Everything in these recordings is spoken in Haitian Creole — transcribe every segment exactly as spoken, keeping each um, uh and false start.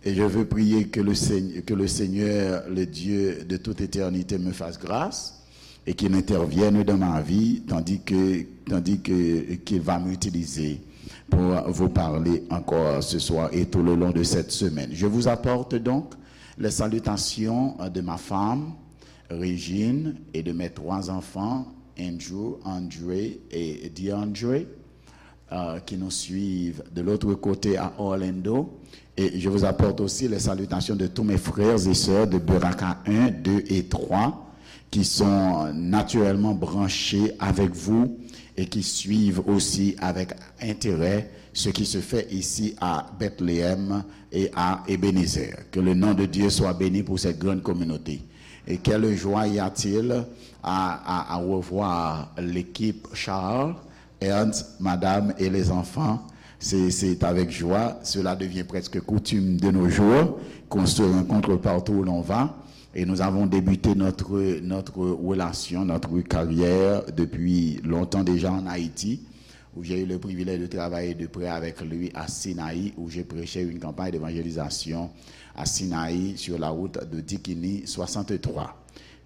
Et je veux prier que le Seigneur, que le Seigneur, le Dieu de toute éternité, me fasse grâce et qu'il intervienne dans ma vie, tandis que, tandis que, qu'il va m'utiliser pour vous parler encore ce soir et tout le long de cette semaine. Je vous apporte donc les salutations de ma femme, Régine, et de mes trois enfants, Andrew, André et DeAndre, euh, qui nous suivent de l'autre côté à Orlando. Et je vous apporte aussi les salutations de tous mes frères et sœurs de Beraka un, deux et trois, qui sont naturellement branchés avec vous et qui suivent aussi avec intérêt ce qui se fait ici à Bethléem et à Ebenezer. Que le nom de Dieu soit béni pour cette grande communauté. Et quelle joie y a-t-il à, à, à revoir l'équipe Charles, Ernst, madame et les enfants. C'est, c'est avec joie. Cela devient presque coutume de nos jours, qu'on se rencontre partout où l'on va. Et nous avons débuté notre, notre relation, notre carrière depuis longtemps déjà en Haïti, où j'ai eu le privilège de travailler de près avec lui à Sinaï, où j'ai prêché une campagne d'évangélisation à Sinaï sur la route de Dikini soixante-trois.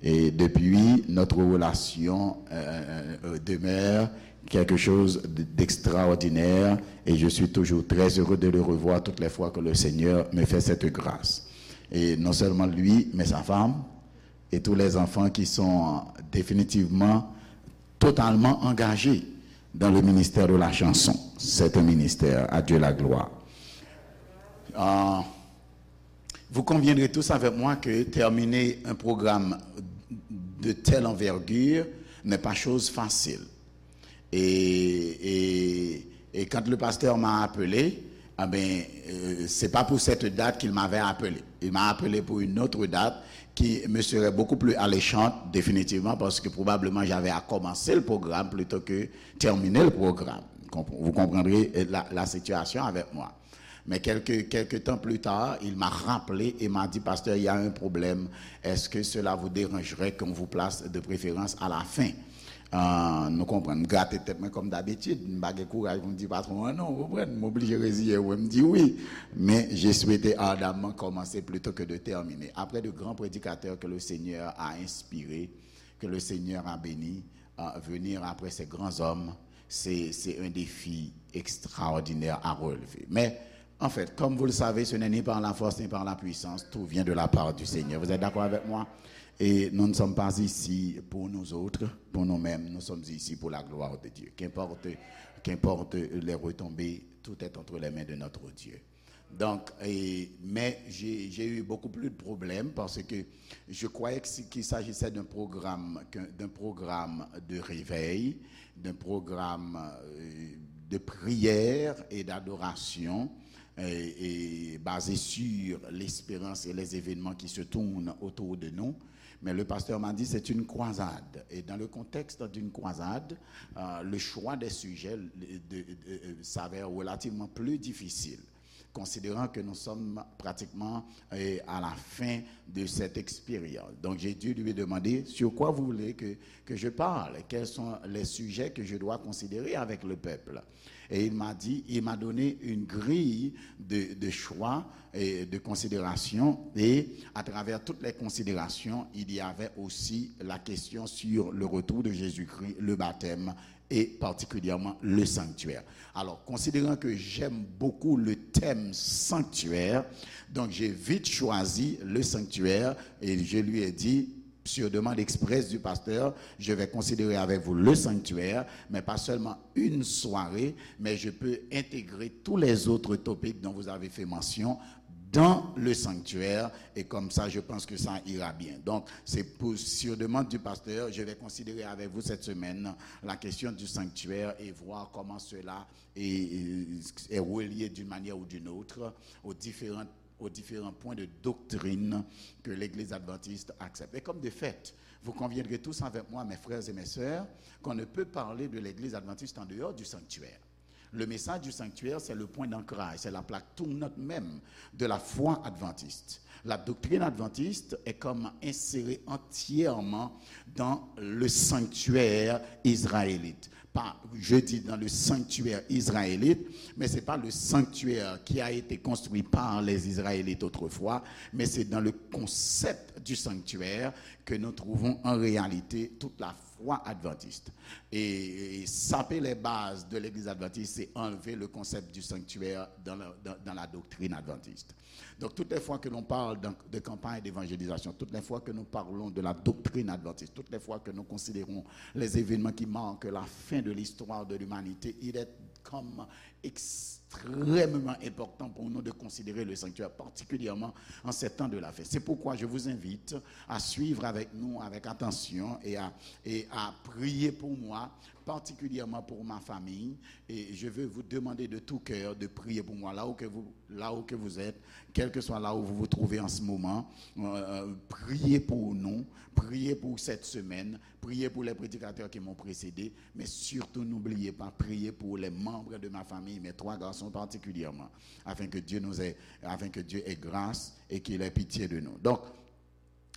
Et depuis, notre relation euh, euh, demeure quelque chose d'extraordinaire et je suis toujours très heureux de le revoir toutes les fois que le Seigneur me fait cette grâce. Et non seulement lui, mais sa femme et tous les enfants qui sont définitivement, totalement engagés dans le ministère de la chanson. C'est un ministère, à Dieu la gloire. Euh, vous conviendrez tous avec moi que terminer un programme de telle envergure n'est pas chose facile. Et, et, et quand le pasteur m'a appelé, ah ben, euh, c'est pas pour cette date qu'il m'avait appelé. Il m'a appelé pour une autre date qui me serait beaucoup plus alléchante, définitivement, parce que probablement j'avais à commencer le programme plutôt que terminer le programme. Vous comprendrez la, la situation avec moi. Mais quelques, quelques temps plus tard, il m'a rappelé et m'a dit, Pasteur, il y a un problème. Est-ce que cela vous dérangerait qu'on vous place de préférence à la fin? Ah, nou konprann, m grate tèt mwen kòm dabitid, m pa gen kouraj pou m di patwon an non, ou konprann, m oblije reziye m, m di wi. Men, j'ai souhaité ardemment commencer plutôt que de terminer. Après de grands prédicateurs que le Seigneur a inspirés, que le Seigneur a bénis, euh, venir après ces grands hommes, c'est, c'est un défi extraordinaire à relever. Mais, en fait, comme vous le savez, ce n'est ni par la force ni par la puissance, tout vient de la part du Seigneur. Vous êtes d'accord avec moi? Et nous ne sommes pas ici pour nous autres, pour nous-mêmes, nous sommes ici pour la gloire de Dieu. Qu'importe, qu'importe les retombées, tout est entre les mains de notre Dieu. Donc, et, mais j'ai eu beaucoup plus de problèmes parce que je croyais qu'il s'agissait d'un programme, d'un programme de réveil, d'un programme euh, de prière et d'adoration et, et basé sur l'espérance et les événements qui se tournent autour de nous. Mais le pasteur m'a dit c'est une croisade. Et dans le contexte d'une croisade, euh, le choix des sujets de, de, de, s'avère relativement plus difficile, considérant que nous sommes pratiquement euh, à la fin de cette expérience. Donc j'ai dû lui demander sur quoi vous voulez que, que je parle, quels sont les sujets que je dois considérer avec le peuple. Et il m'a dit, il m'a donné une grille de, de choix et de considération. Et à travers toutes les considérations, il y avait aussi la question sur le retour de Jésus-Christ, le baptême et particulièrement le sanctuaire. Alors, considérant que j'aime beaucoup le thème sanctuaire, donc j'ai vite choisi le sanctuaire et je lui ai dit, sur demande expresse du pasteur, je vais considérer avec vous le sanctuaire, mais pas seulement une soirée, mais je peux intégrer tous les autres topics dont vous avez fait mention dans le sanctuaire et comme ça, je pense que ça ira bien. Donc, c'est pour, sur demande du pasteur, je vais considérer avec vous cette semaine la question du sanctuaire et voir comment cela est, est relié d'une manière ou d'une autre aux différentes aux différents points de doctrine que l'Église adventiste accepte. Et comme de fait, vous conviendrez tous avec moi, mes frères et mes sœurs, qu'on ne peut parler de l'Église adventiste en dehors du sanctuaire. Le message du sanctuaire, c'est le point d'ancrage, c'est la plaque tournante même de la foi adventiste. La doctrine adventiste est comme insérée entièrement dans le sanctuaire israélite. pas, je dis, dans le sanctuaire israélite, mais c'est pas le sanctuaire qui a été construit par les Israélites autrefois, mais c'est dans le concept du sanctuaire que nous trouvons en réalité toute la foi adventiste. Et, et saper les bases de l'Église adventiste, c'est enlever le concept du sanctuaire dans la, dans, dans la doctrine adventiste. Donc, toutes les fois que l'on parle de, de campagne d'évangélisation, toutes les fois que nous parlons de la doctrine adventiste, toutes les fois que nous considérons les événements qui marquent la fin de l'histoire de l'humanité, il est comme extrêmement important pour nous de considérer le sanctuaire, particulièrement en ces temps de la fin. C'est pourquoi je vous invite à suivre avec nous, avec attention et à, et à prier pour moi, particulièrement pour ma famille. Et je veux vous demander de tout cœur de prier pour moi. Là où que vous, là où que vous êtes, quel que soit là où vous vous trouvez en ce moment, euh, priez pour nous, priez pour cette semaine, priez pour les prédicateurs qui m'ont précédé, mais surtout n'oubliez pas, priez pour les membres de ma famille, mes trois garçons particulièrement, afin que Dieu nous ait, afin que Dieu ait grâce et qu'il ait pitié de nous. Donc,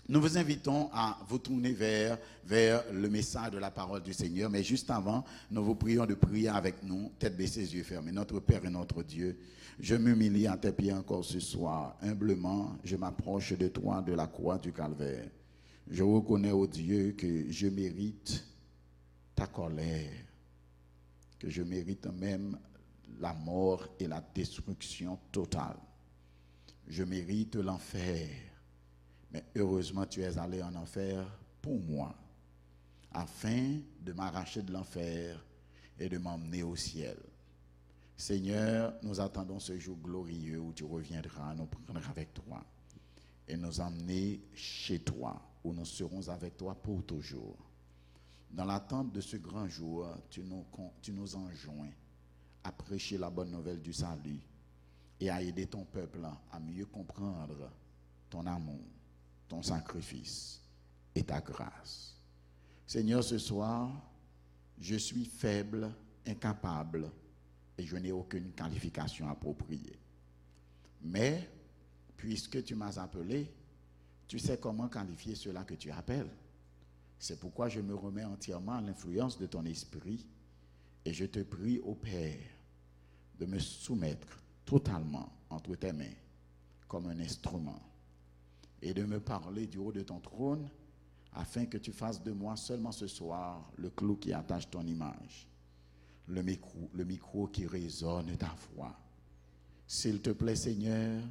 nous vous invitons à vous tourner vers, vers le message de la parole du Seigneur, mais juste avant, nous vous prions de prier avec nous, tête baissée, yeux fermés. Notre Père et notre Dieu, je m'humilie à tes pieds encore ce soir. Humblement, je m'approche de toi de la croix du Calvaire. Je reconnais, ô Dieu, que je mérite ta colère, que je mérite même la mort et la destruction totale. Je mérite l'enfer, mais heureusement tu es allé en enfer pour moi, afin de m'arracher de l'enfer et de m'emmener au ciel. Seigneur, nous attendons ce jour glorieux où tu reviendras nous prendre avec toi et nous emmener chez toi, où nous serons avec toi pour toujours. Dans l'attente de ce grand jour, tu nous, con- tu nous enjoins à prêcher la bonne nouvelle du salut et à aider ton peuple à mieux comprendre ton amour, ton sacrifice et ta grâce. Seigneur, ce soir, je suis faible, incapable, et je n'ai aucune qualification appropriée. Mais, puisque tu m'as appelé, tu sais comment qualifier cela que tu appelles. C'est pourquoi je me remets entièrement à l'influence de ton esprit et je te prie, ô Père, de me soumettre totalement entre tes mains comme un instrument et de me parler du haut de ton trône afin que tu fasses de moi seulement ce soir le clou qui attache ton image, le micro, le micro qui résonne ta voix. S'il te plaît, Seigneur,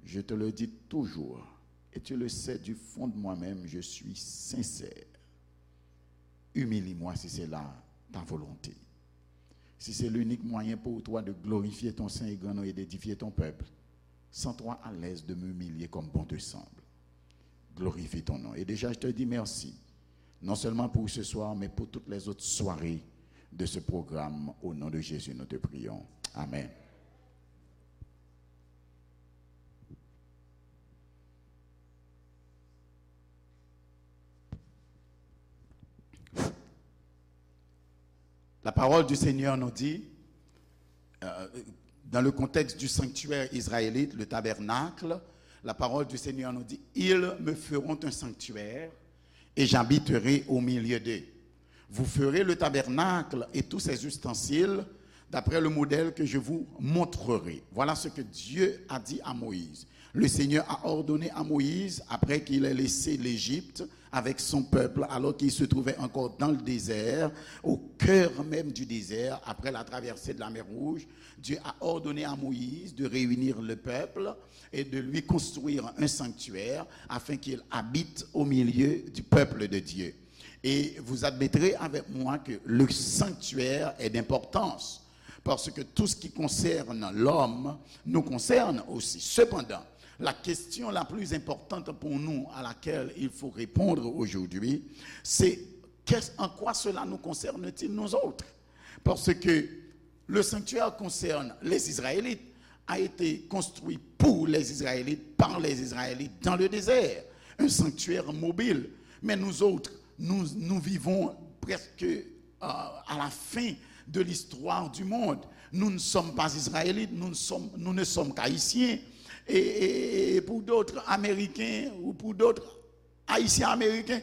je te le dis toujours, et tu le sais du fond de moi-même, je suis sincère. Humilie-moi si c'est là ta volonté. Si c'est l'unique moyen pour toi de glorifier ton saint et grand nom et d'édifier ton peuple, sens-toi à l'aise de m'humilier comme bon te semble. Glorifie ton nom. Et déjà, je te dis merci, non seulement pour ce soir, mais pour toutes les autres soirées de ce programme. Au nom de Jésus, nous te prions. Amen. La parole du Seigneur nous dit, euh, dans le contexte du sanctuaire israélite, le tabernacle, la parole du Seigneur nous dit, ils me feront un sanctuaire et j'habiterai au milieu d'eux. Vous ferez le tabernacle et tous ses ustensiles d'après le modèle que je vous montrerai. Voilà ce que Dieu a dit à Moïse. Le Seigneur a ordonné à Moïse, après qu'il ait laissé l'Égypte avec son peuple, alors qu'il se trouvait encore dans le désert, au cœur même du désert, après la traversée de la mer Rouge, Dieu a ordonné à Moïse de réunir le peuple et de lui construire un sanctuaire afin qu'il habite au milieu du peuple de Dieu. Et vous admettrez avec moi que le sanctuaire est d'importance, parce que tout ce qui concerne l'homme nous concerne aussi. Cependant, la question la plus importante pour nous à laquelle il faut répondre aujourd'hui, c'est qu'est-ce- en quoi cela nous concerne-t-il nous autres? Parce que le sanctuaire concerne les Israélites, a été construit pour les Israélites, par les Israélites, dans le désert. Un sanctuaire mobile. Mais nous autres, nous, nous vivons presque, euh, à la fin de l'histoire du monde. Nous ne sommes pas israélites, nous ne sommes, nous ne sommes qu'haïtiens. Et, et- et pour d'autres, américains ou pour d'autres, haïtiens américains.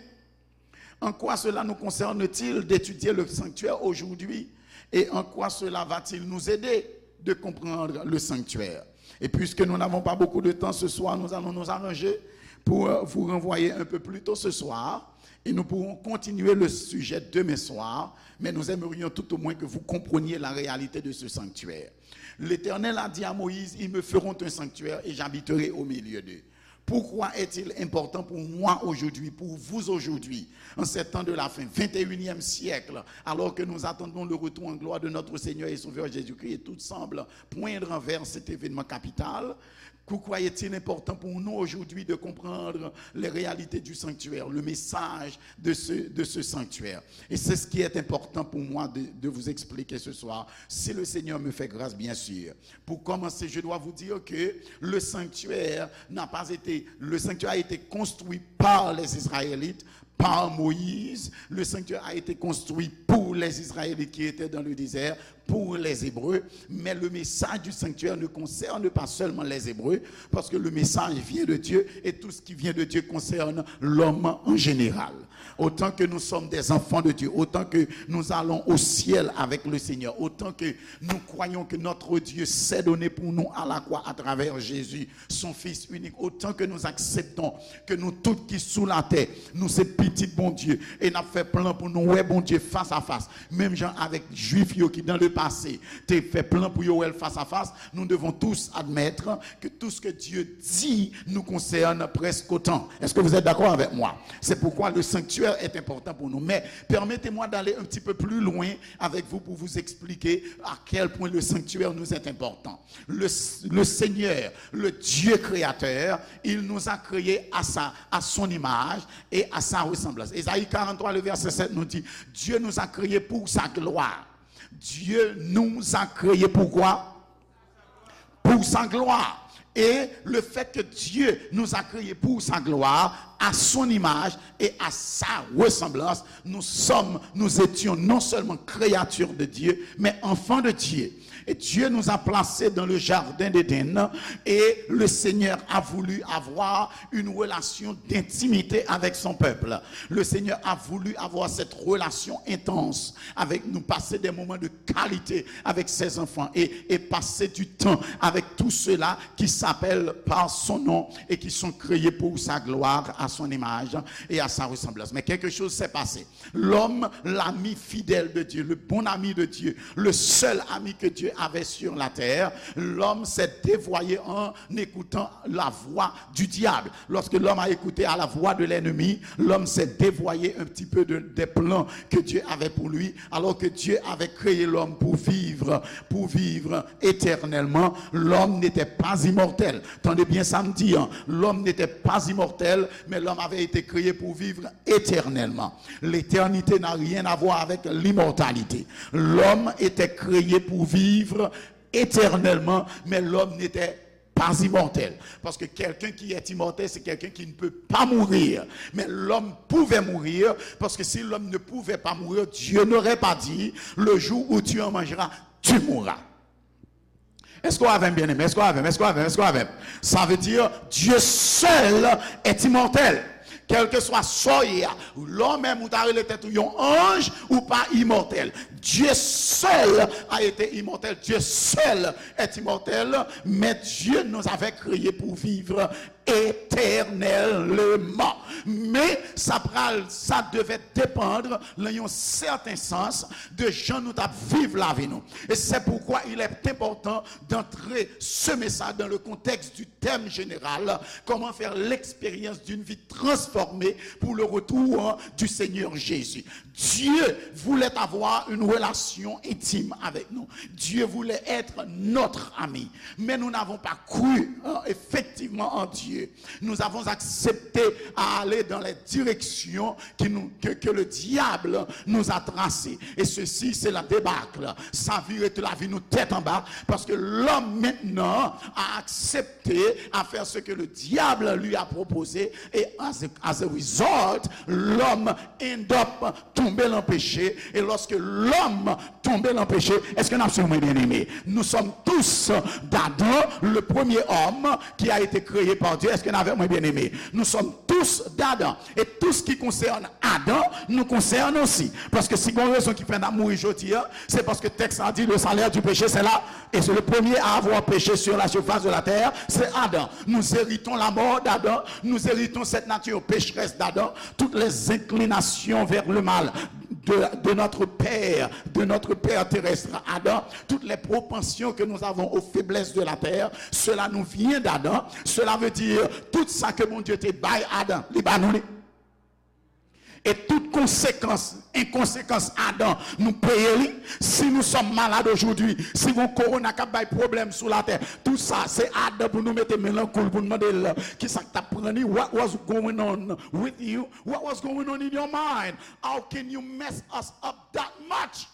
En quoi cela nous concerne-t-il d'étudier le sanctuaire aujourd'hui? Et en quoi cela va-t-il nous aider de comprendre le sanctuaire? Et puisque nous n'avons pas beaucoup de temps ce soir, nous allons nous arranger pour euh, vous renvoyer un peu plus tôt ce soir. Et nous pourrons continuer le sujet demain soir, mais nous aimerions tout au moins que vous compreniez la réalité de ce sanctuaire. L'Éternel a dit à Moïse, ils me feront un sanctuaire et j'habiterai au milieu d'eux. Pourquoi est-il important pour moi aujourd'hui, pour vous aujourd'hui, en ces temps de la fin, vingt et unième siècle, alors que nous attendons le retour en gloire de notre Seigneur et Sauveur Jésus-Christ et tout semble poindre vers cet événement capital? Pourquoi est-il important pour nous aujourd'hui de comprendre les réalités du sanctuaire, le message de ce, de ce sanctuaire? Et c'est ce qui est important pour moi de, de vous expliquer ce soir, si le Seigneur me fait grâce, bien sûr. Pour commencer, je dois vous dire que le sanctuaire n'a pas été, le sanctuaire a été construit par les Israélites, par Moïse. Le sanctuaire a été construit pour les Israélites qui étaient dans le désert, pour les Hébreux. Mais le message du sanctuaire ne concerne pas seulement les Hébreux, parce que le message vient de Dieu et tout ce qui vient de Dieu concerne l'homme en général. Autant que nous sommes des enfants de Dieu, autant que nous allons au ciel avec le Seigneur, autant que nous croyons que notre Dieu s'est donné pour nous à la croix à travers Jésus, son Fils unique, autant que nous acceptons que nous tous qui sous la terre, nous c'est petits bon Dieu, et n'a fait plan pour nous, ouais, bon Dieu, face à face. Même gens avec juifs qui dans le passé, te fait plan pour Yoel face à face, nous devons tous admettre que tout ce que Dieu dit nous concerne presque autant. Est-ce que vous êtes d'accord avec moi? C'est pourquoi le sanctuaire est important pour nous. Mais permettez-moi d'aller un petit peu plus loin avec vous pour vous expliquer à quel point le sanctuaire nous est important. Le, le Seigneur, le Dieu créateur, il nous a créés à sa, à son image et à sa ressemblance. Ésaïe quarante-trois, le verset sept nous dit, Dieu nous a créés pour sa gloire. Dieu nous a créés pour quoi? Pour sa gloire. Et le fait que Dieu nous a créés pour sa gloire, à son image et à sa ressemblance, nous sommes, nous étions non seulement créatures de Dieu, mais enfants de Dieu. Et Dieu nous a placés dans le jardin d'Éden et le Seigneur a voulu avoir une relation d'intimité avec son peuple. Le Seigneur a voulu avoir cette relation intense avec nous, passer des moments de qualité avec ses enfants et, et passer du temps avec tous ceux-là qui s'appellent par son nom et qui sont créés pour sa gloire, à son image et à sa ressemblance. Mais quelque chose s'est passé. L'homme, l'ami fidèle de Dieu, le bon ami de Dieu, le seul ami que Dieu avait sur la terre, l'homme s'est dévoyé en écoutant la voix du diable. Lorsque l'homme a écouté à la voix de l'ennemi, l'homme s'est dévoyé un petit peu de, des plans que Dieu avait pour lui, alors que Dieu avait créé l'homme pour vivre, pour vivre éternellement. L'homme n'était pas immortel. Tande byen sa m di an. L'homme n'était pas immortel, mais l'homme avait été créé pour vivre éternellement. L'éternité n'a rien à voir avec l'immortalité. L'homme était créé pour vivre éternellement, mais l'homme n'était pas immortel. Parce que quelqu'un qui est immortel, c'est quelqu'un qui ne peut pas mourir. Mais l'homme pouvait mourir, parce que si l'homme ne pouvait pas mourir, Dieu n'aurait pas dit, le jour où tu en mangeras, tu mourras. Èske w avè m, byeneme? Èske w avè m? Èske w avè m? Èske w avè m? Sa vle di, Dieu seul est immortel. Kèlkeswa sa w ye a, lè w menm ou ta rele tèt ou yon anj, ou pa imòtèl. Dieu seul a été immortel. Dieu seul est immortel, mais Dieu nous avait créés pour vivre éternellement. Men sa pral, sa devait dépendre, nan yon sèten sans, de jan nou t ap viv lavi nou. Et c'est pourquoi il est important d'entrer ce message dans le contexte du thème général, comment faire l'expérience d'une vie transformée pour le retour du Seigneur Jésus. Dieu voulait avoir une relation intime avec nous. Dieu voulait être notre ami. Mais nous n'avons pas cru, hein, effectivement en Dieu. Nous avons accepté à aller dans les directions qui nous, que, que le diable nous a tracées. Et ceci, c'est la débâcle. Sa vire tout lavi nou tèt anba, paske lòm mentnan a aksepte à faire ce que le diable lui a proposé. Et as a, as a result, l'homme end up tonbe nan peche. E lòske lòm tonbe nan peche, èske n ap swiv mwen, byeneme? Nous sommes tous d'Adam, le premier homme qui a été créé par Dieu. Est-ce que n avèk mwen, bien-aimé? Nous sommes tous d'Adam. Et tout ce qui concerne Adam nous concerne aussi. Paske si gon rezon ki fè n ap mouri jodi a, se paske tèks la di, le salaire du péché, c'est la, et c'est le premier à avoir péché sur la surface de la terre, c'est Adam. Nous héritons la mort d'Adam, nous héritons cette nature pécheresse d'Adam, toutes les inclinations vers le mal de, de notre père, de notre père terrestre Adam, toutes les propensions que nous avons aux faiblesses de la terre, cela nous vient d'Adam. Cela veut dire, tout sa ke Bondye te bay Adan, li ba nou li. E tout konsekans, enkonsekans Adan, nou peye li. Si nous sommes malades aujourd'hui, si gon korona k ap bay pwoblèm sou latè, tout sa, se Adan pou nou mete men nan kou l, pou n mande l, ki sa k t ap pran li? What was going on with you? What was going on in your mind? How can you mess us up that much?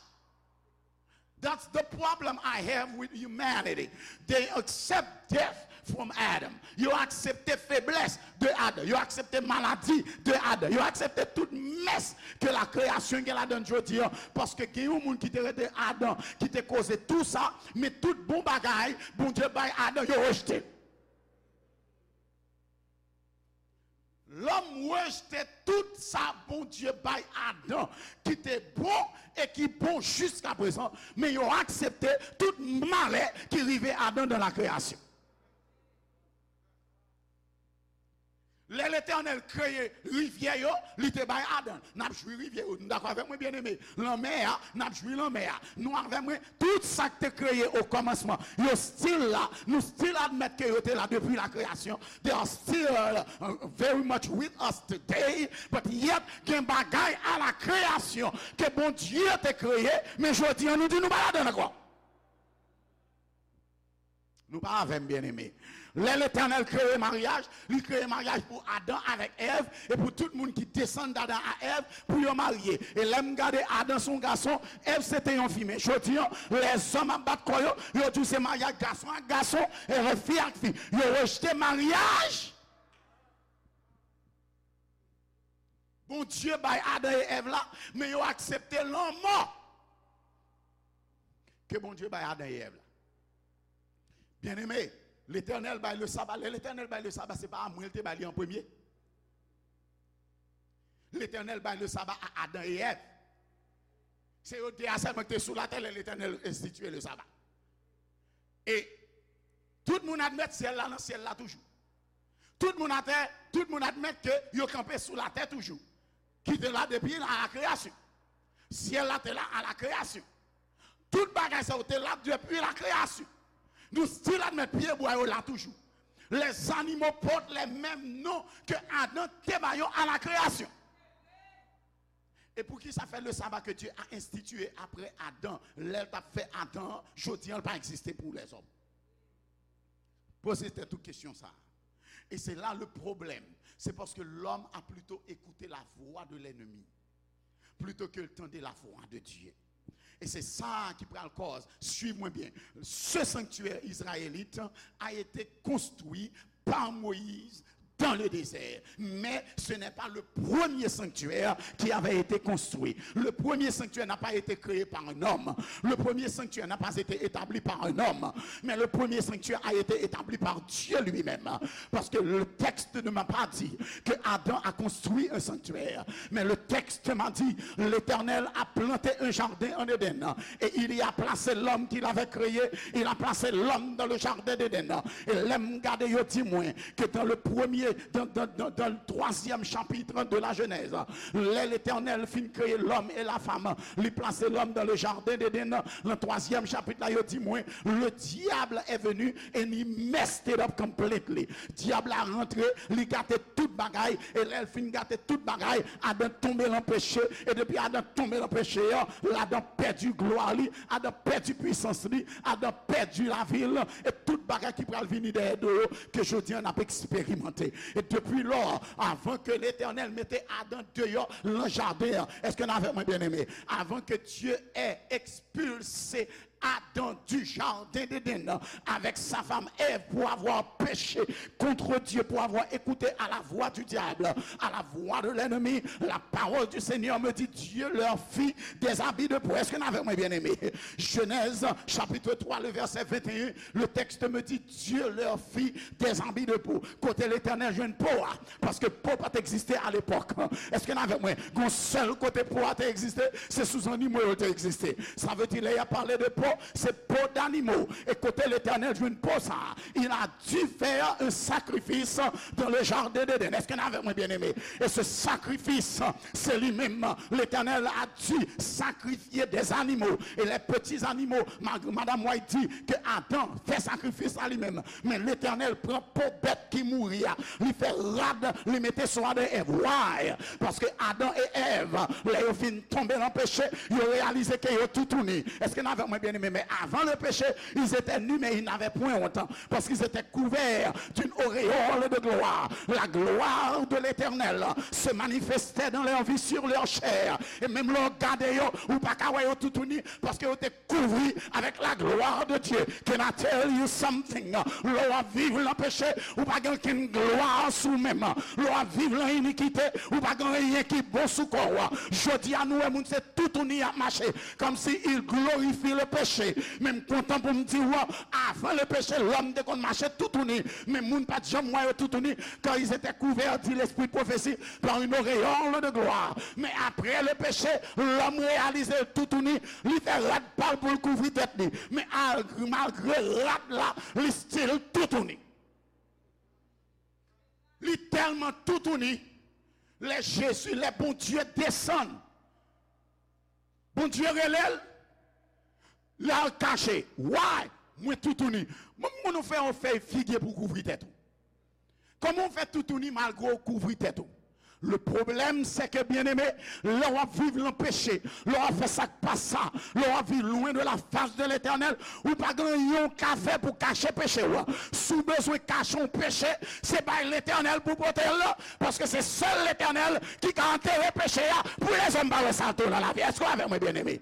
That's the problem I have with humanity. They accept death from Adam. Yo aksepte feblès de Adan. Yo aksepte maladi de Adan. Yo aksepte tout mès ke la kreyasyon gen ladan l jodi a. Paske gen yon moun ki te rete Adan, ki te koze tou sa, men tout bon bagay Bondye bay Adan, yo rejte. Lòm rejte tout sa Bondye bay Adan ki te bon e ki bon jiskaprezan, men yo aksepte tout malè ki rive Adan dans la création. Lè Letènèl kreye rivyè yo, li te bay Adan. N ap jwi rivyè yo. Nou dakò avèk mwen, byeneme? Lanmè a, n ap jwi lanmè a. Nou avèk mwen? Tout sa k te kreye o kòmansman, yo still la. Nou still admèt ke yo te la depi la kreyasyon. They are still uh, very much with us today. But yet, gen bagay a la kreyasyon ke Bondye te kreye, men jodi an nou di nou pa ladan l ankò. Nou pa avè m, byeneme. Lè Letènèl kreye maryaj, li kreye maryaj pou Adan avèk Èv, e pou tout moun ki desann d Adan a Èv, pou yo marye. E lè m gade Adan se yon gason, Èv se te yon fi. Men jodi an, lèzòm ap bat kò yo, yo di w se maryaj gason ak gason, e fi ak fi. Yo rejte maryaj Bondye bay Adan e Èv la, men yo aksepte lanmò ke Bondye bay Adan e Èv la. Byeneme, Letènèl bay le saba. Lè Letènèl bay le saba, se pa a mwen l te bay li an premye. Letènèl bay le saba a Adan e Èv. Se yo de a sèlman ki te sou latè lè Letènèl enstitiye le saba. E tout moun admèt syèl la nan syèl la toujou. Tout moun atè, tout moun admèt ke yo kanpe sou latè toujou. Ki te la depi a la kreyasyon. Syèl la te la a la kreyasyon. Tout bagay sa yo te la depi la kreyasyon. Nou still admèt pyebwa yo la toujou. Les animaux portent les mêmes noms que Adam te ba yo a la kreyasyon. E pou ki sa fè le saba ke Dye a enstitiye apre Adan, lè l t ap fè Adan an, jodi an l pa egziste pou lèzòm? Poze tèt ou kesyon sa a. Et c'est là le problème. C'est parce que l'homme a plutôt écouté la voix de l'ennemi plutôt que tande la voix de Dieu. E se sa ki pral kòz, suiv mwen byen, ce sanctuaire israélite a été construit par Moïse dans le désert. Mais ce n'est pas le premier sanctuaire qui avait été construit. Le premier sanctuaire n'a pas été créé par un homme. Le premier sanctuaire n'a pas été établi par un homme. Mais le premier sanctuaire a été établi par Dieu lui-même. Parce que le texte ne m'a pas dit que Adam a construit un sanctuaire. Mais le texte m'a dit, l'Éternel a planté un jardin en Éden. Et il y a placé l'homme qu'il avait créé. Il a placé l'homme dans le jardin d'Éden. E lè m gade, yo di mwen ke dans le premier, dans, dans, dans, dans le troisième chapitre de la Genèse, lè Letènèl fin kreye lòm e la fanm, li plase lòm dans le jardin d'Éden, nan twazyèm chapit la, yo di mwen, le diable est venu and he messed it up completely. Dyab la rantre, li gate tout bagay, e lè l fin gate tout bagay, Adan tonbe nan peche, e depi Adan tonbe nan peche an, Adan pèdi glwa li, Adan pèdi pwisans li, Adan pèdi lavi l, e tout bagay ki pral vini dèyè do yo, ke jodi an n ap eksperimante. E depi lò, avan ke Letènèl mete Adan deyò nan jaden an, èske n avèk mwen, byeneme? Avant que Dieu ait expulsé Adam du jardin d'Éden avec sa femme Ève pour avoir péché contre Dieu, pour avoir écouté à la voix du diable, à la voix de l'ennemi, la parole du Seigneur me dit, Dieu leur fit des habits de peau. Est-ce que vous avez bien aimé? Genèse chapitre trois, le verset vingt et un, le texte me dit, Dieu leur fit des habits de peau. Kote Letènèl jwenn po a? Paske po pa t egziste alepòk. Èske n avèk mwen? Gon sèl kote po a te egziste, se sou zannimo yo te egziste. Sa vle di, lè y ap pale de po, se po d'animo. E kote Letènèl jwenn po sa a? Il a dû faire un sacrifice dans le jardin d'Éden. Èske n avèk mwen, byeneme? E se sakrifis, se li menm, Letènèl a dû sacrifier des animaux. Et les petits animaux, ma- Madame White di ke Adan fè sakrifis la li menm. Men Letènèl pran po bèt ki mouri a, li fè rad, li mete sou Adan e Èv. Why? Paske Adan e Èv, lè yo fin tonbe nan peche, yo reyalize ke yo toutouni. Èske n avèk mwen, byeneme? Men avan le péché, ils étaient nus, mais ils n'avaient point honte, parce qu'ils étaient couverts d'une auréole de gloire. La gloire de l'Éternel se manifestait dans leur vie, sur leur chair. E menm lè w gade yo, ou pa ka wè yo toutouni, paske yo te kouvri avec la gloire de Dieu. Can I tell you something? Lè w ap viv nan peche, ou pa gen okenn glwa sou menm. Lè w ap viv nan inikite, ou pa gen anyen ki bon sou kò w. Jodi a, nou wè moun se toutouni y ap mache, comme si il glorifie le péché. Men m kontan pou m di w, avan le péché, lòm te konn mache toutouni, men moun pa t janm wè yo toutouni, car ils étaient couverts, dit l'esprit de prophétie, par une auréole de gloire. Men apre le péché, lòm reyalize l toutouni, li fè rad pa l pou l kouvri tèt li. Men al- malgre rad la, li still toutouni. Li tèlman toutouni, lè Jezi, lè Bondye desann, Bondye rele l, l al kache. Why? Mwen toutouni. Mwen, mwen, ou fè yon fèy figi pou w kouvri tèt ou. Kòman w fè toutouni malgre w kouvri tèt ou? Le problème, c'est que, byeneme, lè w ap viv nan peche, lè w ap fè sa k pa sa, lè w ap viv loin de la face de l'Éternel, ou pa gen anyen w ka fè pou kache peche w. Si w bezwen kache yon peche, se bay Letènèl pou pote l, paske se sèl Letènèl ki ka antere peche a pou lèzòm pa wè sa tou nan lavi. Èske w avèk mwen, byeneme?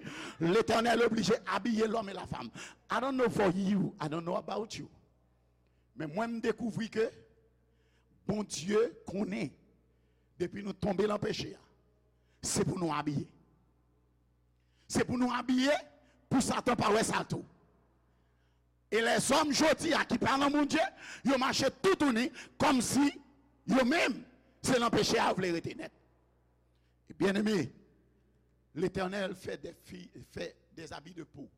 Letènèl oblije abiye lòm e la fanm. I don't know for you, I don't know about you. Men mwen, m dekouvri ke Bondye konnen depi nou tonbe nan peche a, se pou nou abiye. Se pou nou abiye pou Satan pa wè sa tou. E lèzòm jodi a ki pa nan Bondye, yo mache toutouni kòmsi yo menm se nan peche a yo vle rete nèt. E byeneme, Letènèl fè de fi, fè des habits de peau.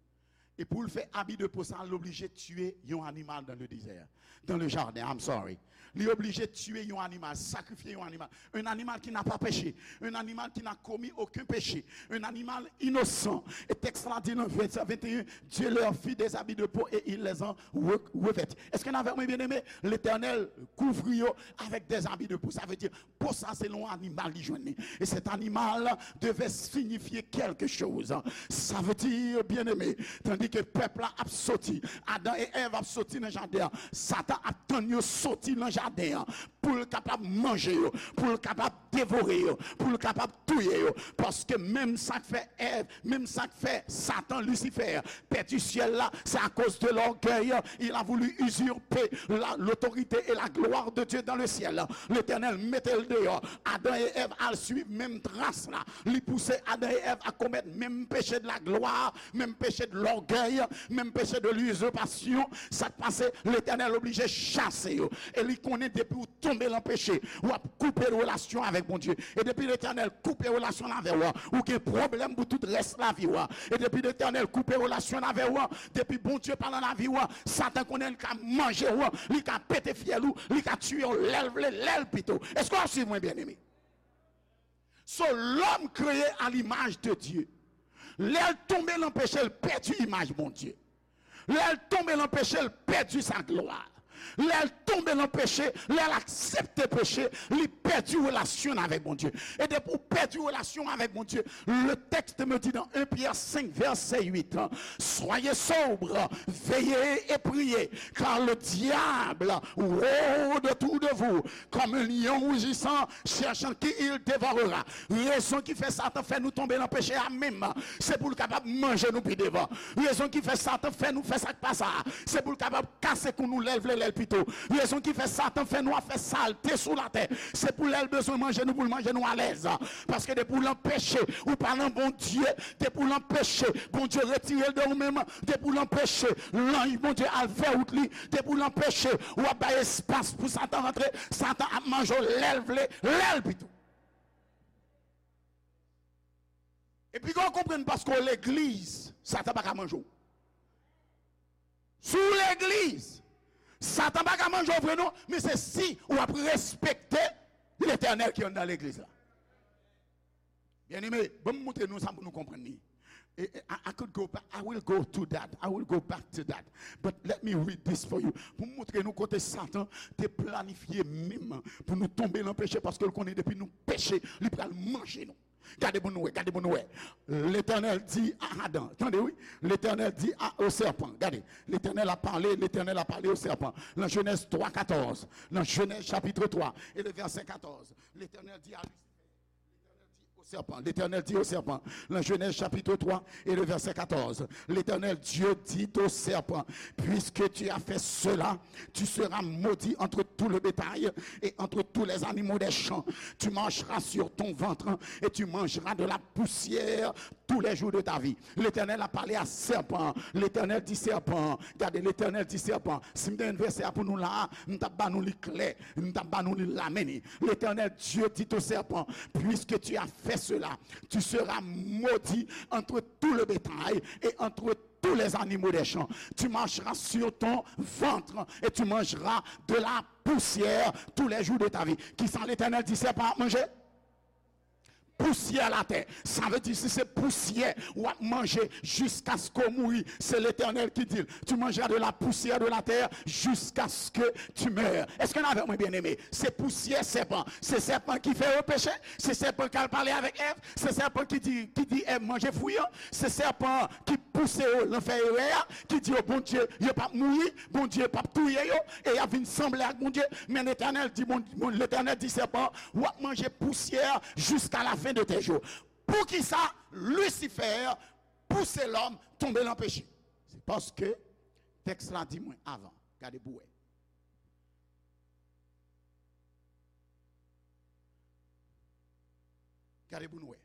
E pou l fè abi de peau sa, l oblije tiye yon animal dans le désert, dans le jardin, I'm sorry. Li oblije tiye yon animal, sakrifye yon animal. Un animal qui n'a pas péché, un animal qui n'a commis aucun péché, un animal innocent. E tèks la di nan vèsè vingt et un, Dieu leur fit des habits de peau et il les en re- revêtit. Èske n avèk mwen, byeneme? Letènèl kouvri yo avec des habits de peau. Sa vle di, po sa se yon animal li jwenn li. Et cet animal devait signifier quelque chose. Sa vle di, byeneme, tandi ke pèp la ap soti, Adan e Èv ap soti nan jaden an, Satan ap tann yo soti nan jaden an pou l kapab manje yo, pou l kapab devore yo, pou l kapab touye yo. Paske menm sa k fè Èv, menm sa k fè Satan, Lisifè, pèdi syèl la, c'est à cause de l'orgueil. Il a voulu usurper la- l'autorité et la gloire de Dieu dans le ciel. Letènèl mete l deyò. Adan e Èv al swiv menm tras la. Li pouse Adan e Èv a komèt menm péché de la gloire, menm péché de l'orgueil, menm péché de l'usurpasyon. Sa k pase, Letènèl oblije chase yo. E li konnen depi w tonbe nan peche, w ap koupe relasyon avèk Bondye. E depi Letènèl koupe relasyon avè w, ou gen pwoblèm pou tout rès lavi w. E depi Letènèl koupe relasyon avè w, depi Bondye pa nan lavi w, Satan konnen li ka manje w, li ka pete fyèl ou, li ka tiye w lè l vle, lè l pito. Èske w ap swiv mwen, byeneme? So, l'homme créé à l'image de Dieu. Lè l tonbe nan peche, l pèdi imaj Bondye. Lè l tonbe nan peche, l pèdi sa glwa. Lè l tonbe nan peche, lè l aksepte peche, li pèdi relasyon l avèk Bondye. E depi w pèdi relasyon avèk Bondye, le texte me dit dans un Pierre cinq, verset huit, soyez sobres, veillez et priez, car le diable rôde autour de Kòm yon lyon rougissant, cherchant qui il dévorera. Rezon ki fè Satan fè nou tonbe nan peche a menm, se pou l kapab manje nou pi devan. Rezon ki fè Satan fè nou fè sa k pa sa, se pou l kapab kase kou nou lè l vle, lè l pito. Rezon ki fè Satan fè nou ap fè salte sou latè, se pou lè l bezwen manje nou, pou l manje nou alèz. Paske depi w nan peche, ou pa nan Bondye. Depi w nan peche, Bondye retire l de ou menm. Depi w nan peche, lanj Bondye al fè wout li. Depi w nan peche, w ap bay espas pou Satan rantre. Satan ap manje w lè l vle, lè l pito. Epi, w konprann, paske w legliz, Satan pa ka manje w. Si w legliz, Satan pa ka manje w vre non, men se si w ap respekte Letènèl ki anndan legliz la. Byeneme, ban m montre nou sa pou nou konprann li. E, e, I, I could go back, I will go to that, I will go back to that. But let me read this for you. Pou m montre nou kote Satan te planifye menm pou nou tonbe nan peche, paske l konnen depi nou peche, li pral manje nou. Gade pou nou wè, gade pou nou wè. L'Éternel dit à Adam, tande wi, l'Éternel dit à, au serpent, gade, l'Éternel a parlé, l'Éternel a parlé au serpent. Nan Genèse trois quatorze, nan Genèse chapitre trois et le verset quatorze, l'Éternel dit à Lucifer, l'Éternel dit au serpent, l'Éternel dit au serpent, dans Genèse chapitre trois et le verset quatorze, l'Éternel Dieu dit au serpent, puisque tu as fait cela, tu seras maudit entre tout le bétail et entre tous les animaux des champs. Tu marcheras sur ton ventre et tu mangeras de la poussière tous les jours de ta vie. L'Éternel a parlé à serpent. L'Éternel dit serpent. Gade, l'Éternel dit serpent. Si m te gen vèsè a pou nou la, m t ap ba nou li klè. M t ap ba nou li la, men li. L'Éternel Dieu dit au serpent, puisque tu as fait cela, tu seras maudit entre tout le bétail et entre tous les animaux des champs. Tu marcheras sur ton ventre et tu mangeras de la poussière tous les jours de ta vie. Kisa Letènèl di sèpan ap manje? Pousyè latè. Sa vle di, si se pousyè w ap manje jiskaske w mouri, se Letènèl ki di l, tu mangeras de la poussière de la terre jusqu'à ce que tu meurs. Èske n avè mwen, byeneme? Se pousyè sèpan. Se sèpan ki fè yo peche. Se sèpan k al pale avèk Èv. Se sèpan ki di, ki di Èv manje fwi an. Se sèpan ki pouse yo nan fè erè a, ki di yo Bondye, yo p ap mouri, Bondye p ap touye yo, e y ap vin sanble ak Bondye. Men Letènèl di, Bon, Bon, Letènèl di sèpan, w ap manje pousyè jusqu'à la fin de tes jours. Poukisa Lisifè pouse lòm tonbe nan peche? Se paske tèks la di mwen avan. Gade pou w wè. Gade pou nou wè.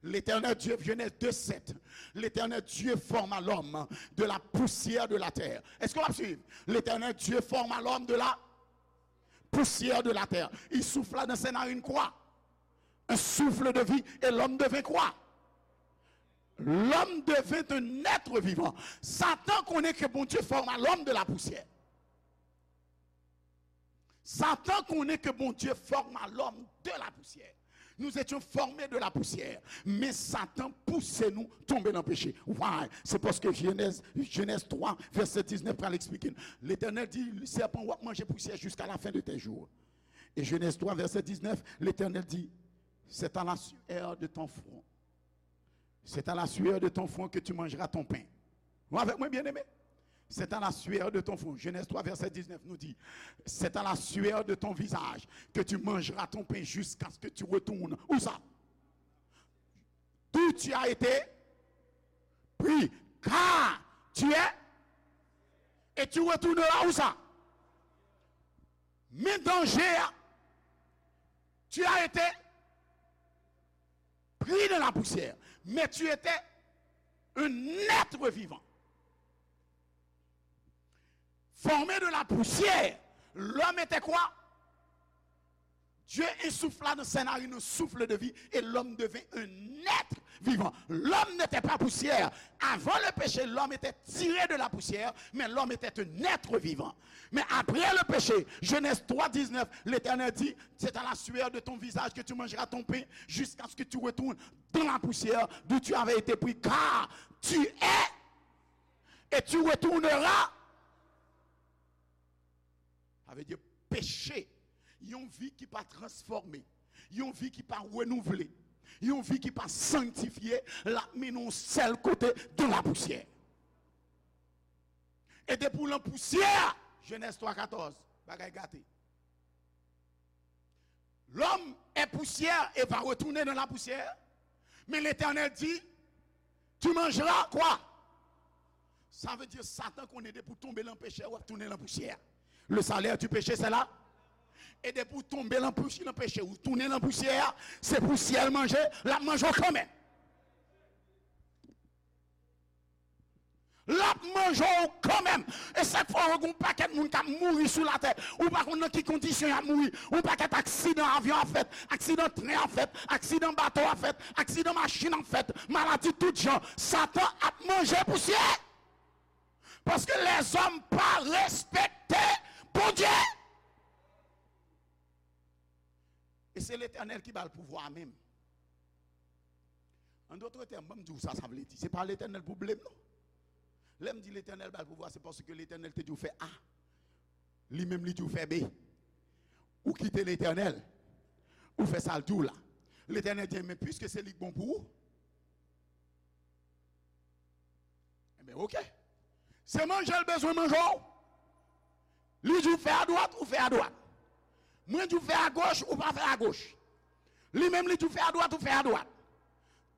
L'Éternel Dieu, Genèse deux sept, l'Éternel Dieu forma l'homme de la poussière de la terre. Èske w ap swiv? L'Éternel Dieu forma l'homme de la poussière de la terre. Il souffla dans ses narines quoi? Un souffle de vie, et l'homme devint quoi? L'homme devint un être vivant. Satan konnen ke Bondye forma l'homme de la poussière. Satan konnen ke Bondye forma l'homme de la poussière. Nous étions formés de la poussière. Men Satan pouse nou tonbe nan peche. Why? Se paske Genèse, Genèse trois, verset dix-neuf pral eksplike n. Letènèl di sèpan, w ap manje pousyè jusqu'à la fin de tes jours. Et Genèse trois, verset dix-neuf, Letènèl di, c'est à la sueur de ton front. C'est à la sueur de ton front que tu mangeras ton pain. Ou avèk mwen, byeneme? C'est à la sueur de ton front. Genèse trois, verset dix-neuf nous dit, c'est à la sueur de ton visage que tu mangeras ton pain jusqu'à ce que tu retournes. Où ça? D'où tu as été pris. Car tu es, et tu retourneras où ça? Men danje a, tu as été pris dans la poussière, mais tu étais un être vivant. Formé de la poussière, l'homme était quoi? Dieu insouffla dans ses narines un souffle de vie et l'homme devint un être vivant. L'homme n'était pas poussière. Avant le péché, l'homme était tiré de la poussière, mais l'homme était un être vivant. Mais après le péché, Genèse trois dix-neuf, l'Éternel dit, c'est à la sueur de ton visage que tu mangeras ton pain jusqu'à ce que tu retournes dans la poussière d'où tu avais été pris, car tu es et tu retourneras. Sa vle di peche, yon vi ki pa transfòme, yon vi ki pa renouvle, yon vi ki pa sanktifye, l ap mennen w sèl kote, dans la poussière. E depi w nan pousyè, Genèse trois quatorze, bagay gate. poussière et va retourner dans la poussière. Mais l'Éternel dit, tu mangeras quoi? Sa vle di Satan konnen depi w tonbe nan peche, w ap tounen nan pousyè. Le salaire du péché, c'est la. E depi w tonbe nan pousyè, nan peche, ou tounen nan pousyè a, se pousyè l manje, l ap manje w kanmenm. L ap manje w kanmenm. E sa k fè w wè gen yon pakèt moun k ap mouri sou latè. Ou pa konn nan ki kondisyon y ap mouri. Yon pakèt aksidan avyon ap fèt, aksidan tren ap fèt, aksidan bato ap fèt, aksidan machin ap fèt, maladi tout jan. Satan ap manje pousyè. Paske lèzòm pa respekte Bondye. E se Letènèl ki ba l pouvwa a menm. An dòt tèm, ban m di w sa sa vle di. Se pa Letènèl pwoblèm non. Lè m di Letènèl ba l pouvwa, se paske Letènèl te di w fè A. Li menm li di w fè B. Ou kite Letènèl, ou fè sa l di w la. Letènèl di, men piske se li k bon pou ou, Enben, oke. Se manje l bezwen manje w. Li di w fè adwat, ou fè adwat. Mwen di w fè agoch, ou pa fè agoch. Li menm li di w fè adwat, ou fè adwat.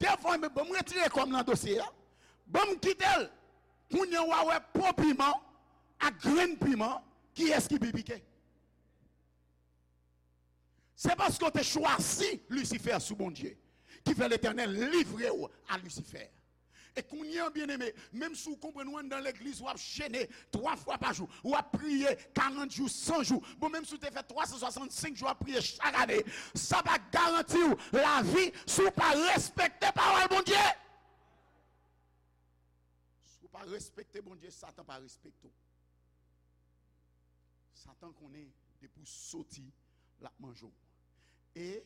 Defwa, enben, ban m retire kò m nan dosye a. Ban m kite l. Kounye a w a wè po piman ak grenn piman, kiyès ki pi pike? Se paske w te chwazi Lisifè sou Bondye ki fè Letènèl livre w a Lisifè. E kounye a, byeneme, menm si w konprann ou anndan legliz, w ap jene twa fwa pa jou, w ap priye karant jou, san jou, bon, menm si w te fè twa san swasannsenk jou ap priye chak ane, sa pa garanti w lavi si w pa respekte pawòl Bondye. Si w pa respekte Bondye, Satan pa respekte w. Satan konnen depi w soti, l ap manje w. E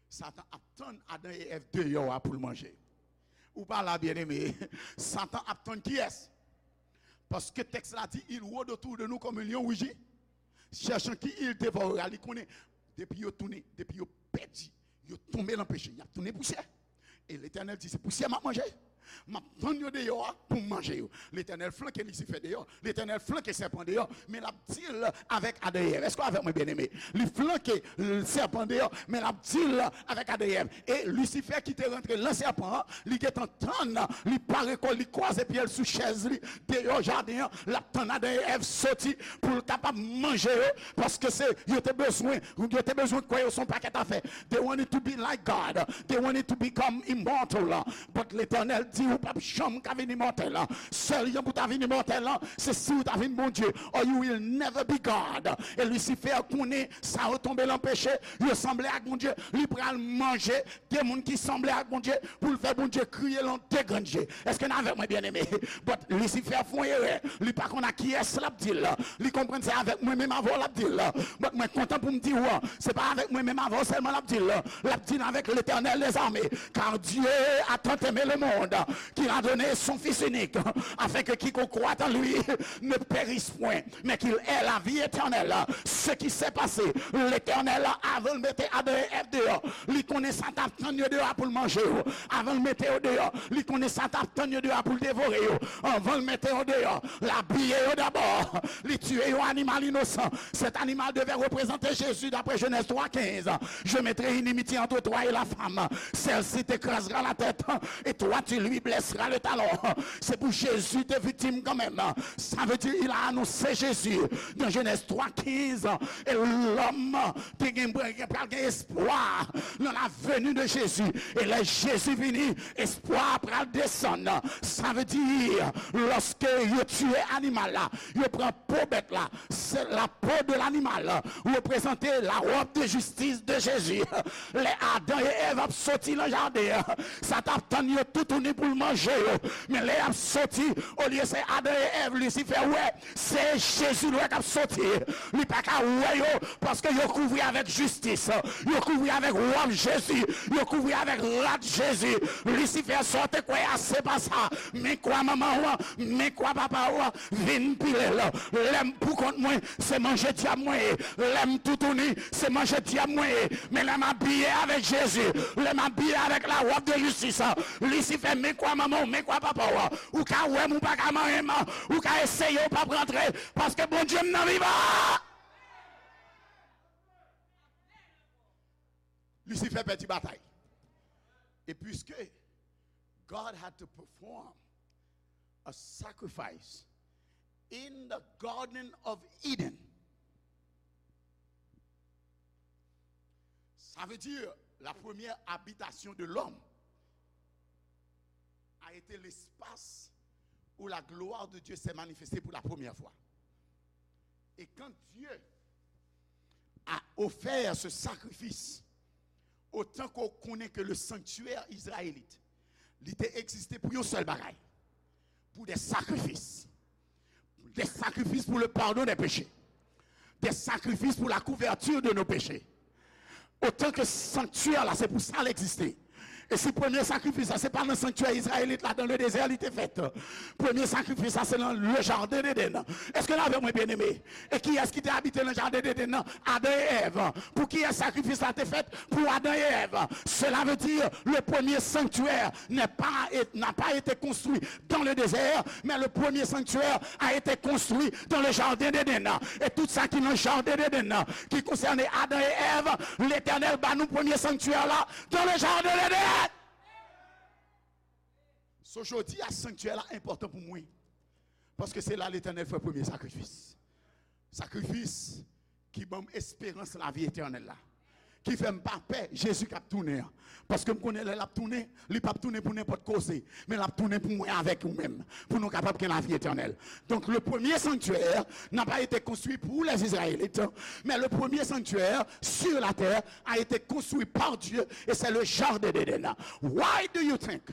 Satan ap tann Adan e Èv deyò a pou l manje. Ou pa la, byeneme. Satan ap tann kiyès? Paske tèks la di, il rôde autour de nous comme un lion rugit, cherchant qui il dévorera. Li konnen, depi yo tounen, depi yo pèdi, yo tonbe nan peche, y ap tounen pousyè. E Letènèl di, se pousyè m ap manje. M ap tann yo deyò a pou m manje yo. Letènèl flanke Lisifè deyò. Letènèl flanke sèpan deyò. Men l ap di l avèk Adan e Èv. Èske w avèk mwen, byeneme? Li flanke, l, sèpan deyò, men l ap di l avèk Adan e Èv. E Lisifè ki te rantre nan sèpan an, li gentan tann, li pare kò l, li kwaze pye l sou chèz li, deyò jaden an, l ap tann Adan e Èv soti pou l kapab manje yo, paske se, yo te bezwen, yo te bezwen kwè yo se yon pakèt afè. They wanted to be like God. They wanted to become immortal. But Letènèl di, ou p ap janm ka vin imòtèl. Sèl jan pou ta vin imòtèl, se si ou ta vin Bondye. Or you will never be God. E Lisifè konnen sa yo tonbe nan peche, yo sanble ak Bondye, li pral manje de moun ki sanble ak Bondye pou l fè Bondye kriye l an de grenn je. Èske n avèk mwen, byeneme? But Lisifè fè yon erè. Li pa konn ak kiyès l ap di l. Li konprann se avèk mwen menm avè w l ap di l. But mwen kontan pou m di w, se pa avèk mwen menm avè w sèlman l ap di l. L ap di l avèk Letènèl dèzame. Car Dieu a tant aimé le monde qu'il a donné son Fils unique, afin que quiconque croit en lui ne périsse point, mais qu'il ait la vie éternelle. Ce qui s'est passé, Letènèl, avan l mete Adan e Èv deyò, li konnen sa t ap tann yo deyò a pou l manje yo. Avan l mete yo deyò, li konnen sa t ap tann yo deyò a pou l devore yo. Anvan l mete yo deyò, l abiye yo dabò. Li tiye yon animal inosan. Cet animal devait représenter Jésus d'après Genèse trois quinze. Je mettrai inimitié entre toi et la femme. Celle-ci t'écrasera la tête et toi tu lui blesseras le talon. Se pou Jezi te viktim kanmenm. Sa vle di, il a annoncé Jésus dans Genèse trois quinze. E lòm te gen, gen, pral gen espwa nan la venue de Jésus. E lè Jezi vini, espwa a pral desann. Sa vle di, lòske yo tiye animal la, yo pran po bèt la, se la peau de l'animal représente la robe de justice de Jésus. Lè Adan e Èv ap soti nan jaden an, sa t ap tann yo toutouni pou l manje yo. Men lè y ap soti, olye se Adan e Èv, Lisifè wè, se Jezi l wè k ap soti. Li pa ka wè yo, paske yo kouvri avèk jistis. Yo kouvri avèk wòb Jezi. Yo kouvri avèk rad Jezi. Lisifè, sa w te kwè a, se pa sa. Men kwa manman w, men kwa papa w, vin pile l. Lè m pou kont mwen, se manje dyab mwen ye. Lè m toutouni, se manje dyab mwen ye. Men lè m abiye avèk Jezi, lè m abiye avèk la robe de justice, Lisifè, men kwa manman w, men kwa papa w, ou ka wè m, ou pa ka manyen m, ou ka eseye, ou p ap rantre, paske Bondye m nan vivan. Lisifè pèdi batay. E puisque God had to perform a sacrifice in the Garden of Eden, ça veut dire la première habitation de l'homme a été l'espace où la gloire de Dieu s'est manifestée pour la première fois. Et quand Dieu a offert ce sacrifice, otan ke w konnen ke le sanctuaire israélite, li te egziste pou yon sèl bagay, pou de sakrifis, de sakrifis pou le pardon des péchés, de sakrifis pou la couverture de nos péchés. Otan ke sanktyè la, se pou sa l egziste. E si premye sakrifis la, se pa nan sanktyè izrayelit la, dans le désert, li te fèt. Premye sakrifis la, se nan le jardin d'Éden. Èske n avè mwen, byeneme? E kiyès ki te abite nan jardin d'Éden nan? Adan e Èv. Pou kiyès sakrifis la te fèt? Pou Adan e Èv. Cela veut dire, le premier sanctuaire n'est pas, n'a pas été construit dans le désert, mais le premier sanctuaire a été construit dans le jardin d'Éden. E tout sa ki nan jardin d'Éden nan, ki konsène Adan e Èv, Letènèl ba nou premye sanktyè la dans le jardin d'Éden. So, jodi a, sanktyè la enpòtan pou mwen. Paske se la Letènèl fè premye sakrifis. Sakrifis ki ban m esperans lavi etènèl la. Ki fè m pa pè Jezi k ap tounen an. Paske m konnen lè l ap tounen, li p ap tounen pou nenpòt koze, men l ap tounen pou mwen avèk ou menm, pou nou kapab gen lavi etènèl. Donc, le premier sanctuaire n'a pas été construit pour les Israélites, mais le premier sanctuaire sur la terre a été construit par Dieu, et c'est le jardin d'Éden. Why do you think,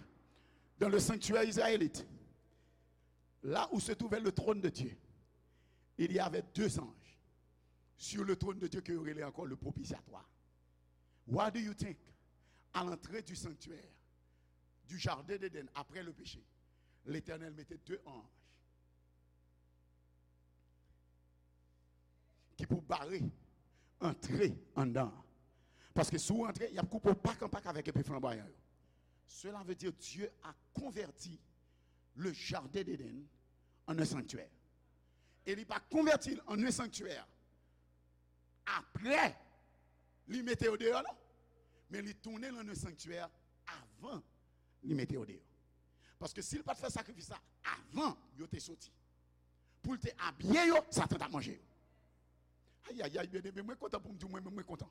dans le sanctuaire israélite, là où se trouvait le trône de Dieu, il y avait deux anges sur le trône de Dieu ke yo rele ankò le propitiatoire. Why do you think, à l'entrée du sanctuaire, du jardin d'Éden, après le péché, Letènèl mete de anj ki pou bare antre anndan an? Paske si w antre, y ap koupe w pak an pak avèk epe flanbwayan yo. Cela veut dire Dieu a converti le jardin d'Éden en un sanctuaire. E li pa konvèti l an un sanctuaire apre li mete yo deyò, non. Men li tounen l an un sanctuaire avan li mete yo deyò. Paske si l pa t fè sakrifis la avan yo te soti, pou l te abiye yo, Satan t ap manje yo. Ayayay, byeneme, mwen kontan pou m di w, mwen menm, mwen kontan.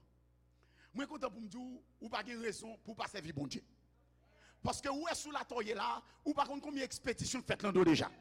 Mwen kontan pou m di w, ou pa gen rezon pou w pa sèvi Bondye. Paske ou wè sou latè w ye la, ou pa konn konbyen ekspedisyon k fèt lan do w deja.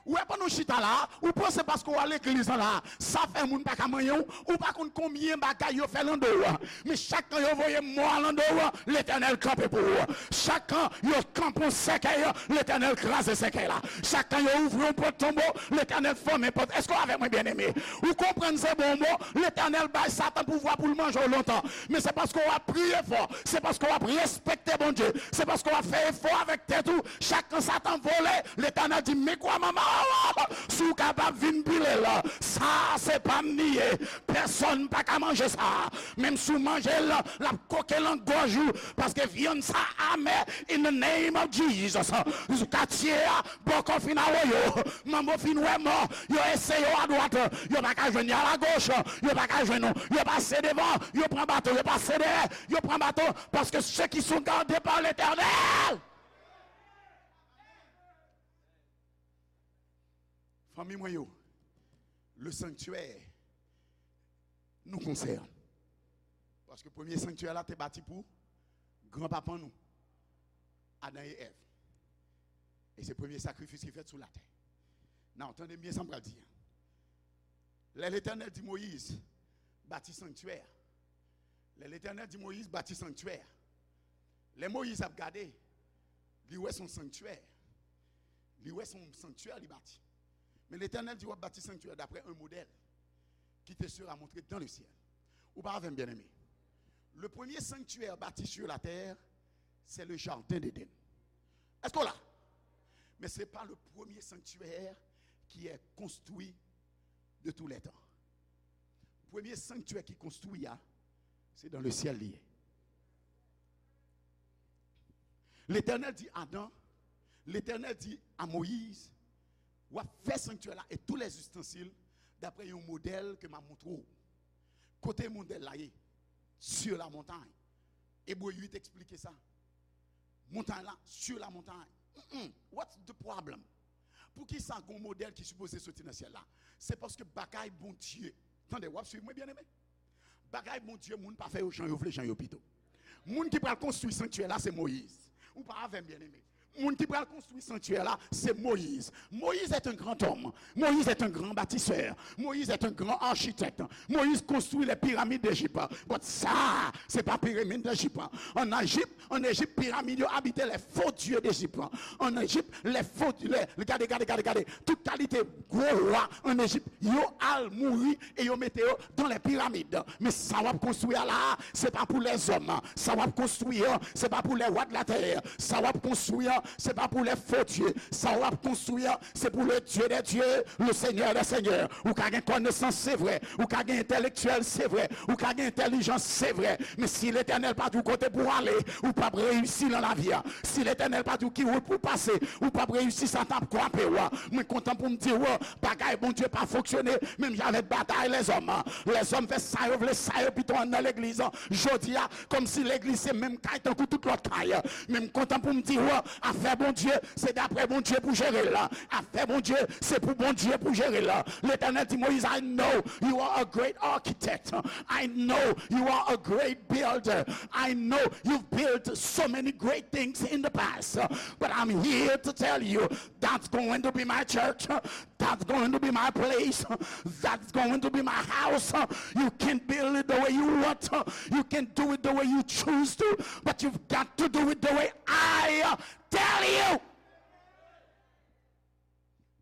Ou wè pandan w chita la, ou panse paske w al legliz lan la, sa fè moun pa ka manyen w, ou pa konn konbyen bagay yo fè lan do w. Men chak kan yo voye mò a lan do w, Letènèl kanpe pou ou. Chak kan yo kanpe yon sèkèy, Letènèl kraze sèkèy la. Chak kan yo ouvri yon pòt tonbo, Letènèl fèmen pòt. Èske w avèk mwen, byeneme? Ou konprann se bon mo? Letènèl bay Satan pouvwa pou l manje w lontan. Men se paske w ap priye fò. Se paske w ap respekte Bondye. Se paske w ap fè efò avèk tèt ou. Chak kan Satan vole, Letènèl di, "Men kwa manman w, si w kapab vin pile l. Sa se pa m li ye. Pèsonn pa ka manje sa. Menm si w manje l, l ap koke lan gòj ou, paske vyann sa amè in the name of Jesus." Katye a bòkò fin awoyo, manbo fin wè mò, yo eseye yo adwat, yo pa ka jwenn, yo alagoch, yo pa ka jwenn ou, yo pase devan, yo pran bato, yo pase dèyè, yo pran bato, paske ceux qui sont gardés par l'Éternel. Fanmi mwen yo, le sanctuaire nous concerne. Paske premye sanktyè la te bati pou granpapa nou, Adan e Èv. E se premye sakrifis ki fèt sou latè. Now, tande m byen sa m pral di an. Lè Letènèl di Moyiz, "Bati sanktyè a." Lè Letènèl di Moyiz, "Bati sanktyè a." Lè Moyiz ap gade, li wè se yon sanktyè. Li wè se yon sanktyè li bati. Men Letènèl di, "W ap bati sanktyè daprè yon modèl ki te sera montre dans le ciel." Ou pa avè m, byeneme? Le premier sanctuaire bâti sur la terre, c'est le jardin d'Éden. Èske w la? Men se pa le premier sanctuaire qui est construit de tous les temps. Premye sanktyè ki konstwi a, se dans le ciel li ye. Letènèl di Adan, Letènèl di a Moyiz, "W ap fè sanktyè la e tous les ustensiles d'après yon modèl ke m ap montre w." Kote modèl la ye? Sur la montagne. Ebre uit eksplike sa. Montay la, sur la montagne. Mm-mm. What's the problem? Poukisa gon modèl ki sipoze soti nan syèl la? Se paske bagay Bondye. Tande, w ap swiv mwen, byeneme? Bagay Bondye, moun pa fè yo jan yo vle, jan yo pito. Moun ki pral konstwi sanktyè la, se Moyiz. Ou pa avè m, byeneme. Moun ki pral konstwi sanktyè la, se Moyiz. Moïse est un grand homme. Moïse est un grand bâtisseur. Moïse est un grand architecte. Moïse construit les pyramides d'Égypte. But sa, se pa piramid Ejip. An Ejip, an Ejip, piramid yo abite les faux dieux d'Égypte. An Ejip, les faux, les, gade, gade, gade, gade. Tout kalite gwo wa an Ejip, yo al mouri e yo mete yo dans les pyramides. Men sa w ap konstwi a la, se pa pou lèzòm. Sa w ap konstwi an, se pa pou les rois de la terre. Sa w ap konstwi an, se pa pou les faux dieux. Sa w ap konstwi an, se pou le Dieu des dieux, le Seigneur des seigneurs. Ou ka gen konesans, se vre. Ou ka gen entèlektyèl, se vre. Ou ka gen entèlijans, se vre. Men si Letènèl pa di w kote pou w ale, ou p ap reyisi nan lavi a. Si Letènèl pa di w ki wout pou w pase, ou p ap reyisi, sa t ap kwape w. Mwen kontan pou m di w, bagay Bondye pa fonksyone, menm jan avèk batay lèzòm. Lèzòm fè sa yo vle, sa yo pito ann nan legliz. Jodi a, kòmsi legliz se menm kay tankou tout lòt kay. Men m kontan pou m di w, afè Bondye, se daprè Bondye pou jere l. Afè Bondye, se pou Bondye pou jere l. Letènèl di Moyiz, I know you are a great architect. I know you are a great builder. I know you've built so many great things in the past. But I'm here to tell you, that's going to be my church. That's going to be my place. That's going to be my house. You can build it the way you want. You can do it the way you choose to. But you've got to do it the way I tell you.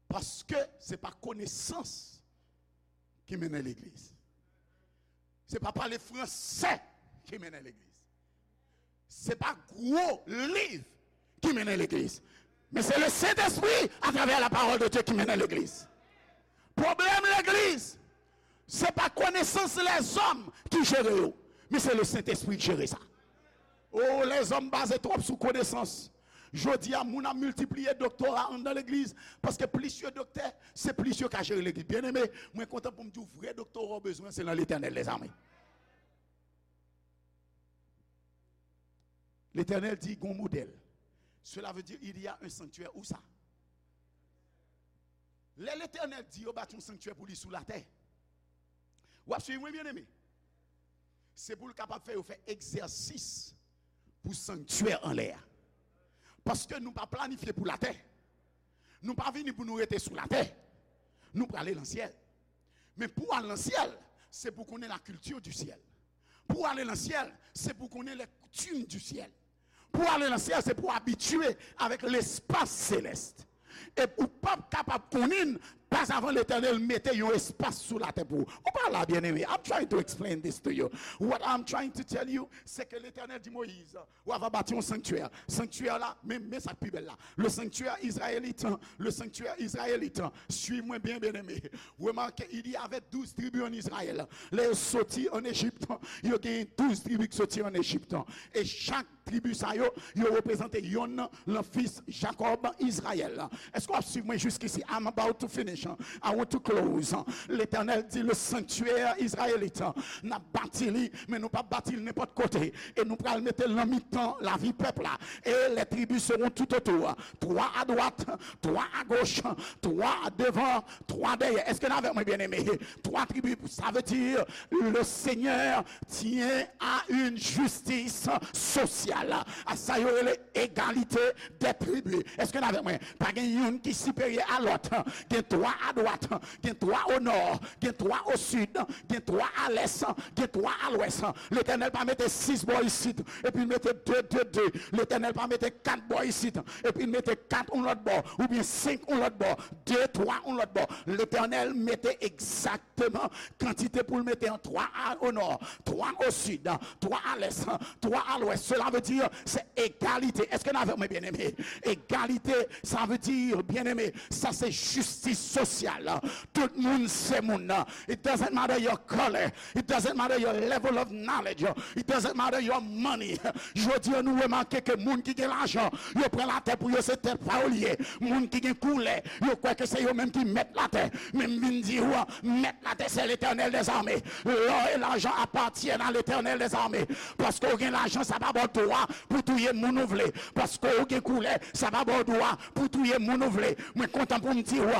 Paske se pa konesans ki mennen legliz. Se pa pale fransè ki mennen legliz. Se pa gwo liv ki mennen legliz. Men se le Sentespri, atravè la parole de Dieu, ki mennen legliz. Pwoblèm legliz, se pa konesans lèzòm ki jere yo, men se le Sentespri ki jere sa. O, lèzòm baze twòp sou konesans. Jodi a, moun ap miltipliye doktora anndan legliz, paske plis yo doktè, se plis yo ka jere legliz. Byeneme, mwen kontan pou m di w, vrè doktora w bezwen, se nan Letènèl dèzame. Letènèl di, gon modèl. Cela veut dire, il y a un sanctuaire. Où ça? Lè Letènèl di yo bati yon sanktyè pou li sou latè, w ap swiv mwen, byeneme? Se pou l kapab fè yo fè egzèsis pou sanktyè anlè a. Paske nou pa planifye pou latè. Nou pa vini pou nou rete sou latè. Nou prale nan syèl. Men pou al nan syèl, se pou konnen la culture du ciel. Pou ale nan syèl, se pou konnen les coutumes du ciel. Pou ale nan syèl, se pou abitye avèk lespas selès. E ou p ap kapab konnen l, pas avan Letènèl mete yon espas sou latè pou ou. Ou pa la, byeneme. I'm trying to explain this to you. What I'm trying to tell you, se ke Letènèl di Moyiz, w ava bati yon sanktyè. Sanktyè la, men, men sa k pi bèl la. Le sanctuaire israélite, le sanctuaire israélite. Swiv mwen byen, byeneme. Remake, il y avait douze tribus en Israël. Lè yo soti ann Ejip, yo gen douz tribi ki soti ann Ejip. E chak tribi sa yo, yo reprezante yonn nan fis Jakòb, Izrayèl. Èske w ap swiv mwen jiskisi? I'm about to finish. I want to close. Letènèl di, le sanctuaire israélite, n ap bati li, men nou p ap bati l nenpòt kote. E nou pral mete l nan mitan lavi pèp la. Et les tribus seront tout autour. Trois à droite, trois à gauche, trois devant, trois derrière. Èske n avèk mwen, byeneme? Twa tribi, sa vle di, le Seigneur tient à une justice sociale. A sa yo rele egalite dè tribi. Èske n avèk mwen? Pa gen youn ki siperyè a lòt. Gen twa adwat, gen twa o nò, gen twa o sid, gen twa a lès, gen twa a lwès. Letènèl pa mete sis bò isit, epi l mete de, de, de. Letènèl pa mete kat bò isit, epi l mete kat yon lòt bò, oubyen senk yon lòt bò, de, twa yon lòt bò. Letènèl mete egzakteman kantite pou l mete an, twa a, o nò, twa o sid, twa a lès, twa a lwès. Cela veut dire, c'est égalité. Èske n avèk mwen, byeneme? Egalite, sa vle di, byeneme, sa se jistis sosyal. Tout moun se moun. It doesn't matter your color. It doesn't matter your level of knowledge. It doesn't matter your money. Jodi an, nou remake ke moun ki gen lajan, yo pran latè pou yo, se tèt pa yo li ye. Moun ki gen koulè, yo kwè ke se yo menm ki mèt latè. Men m vin di w, mèt latè, c'est l'Éternel des armées. L'or et l'argent appartiennent à l'Éternel des armées. Paske w gen lajan, sa pa ba w dwa pou touye moun ou vle. Paske w gen koulè, sa pa ba w dwa pou touye moun ou vle. Mwen kontan pou m di w,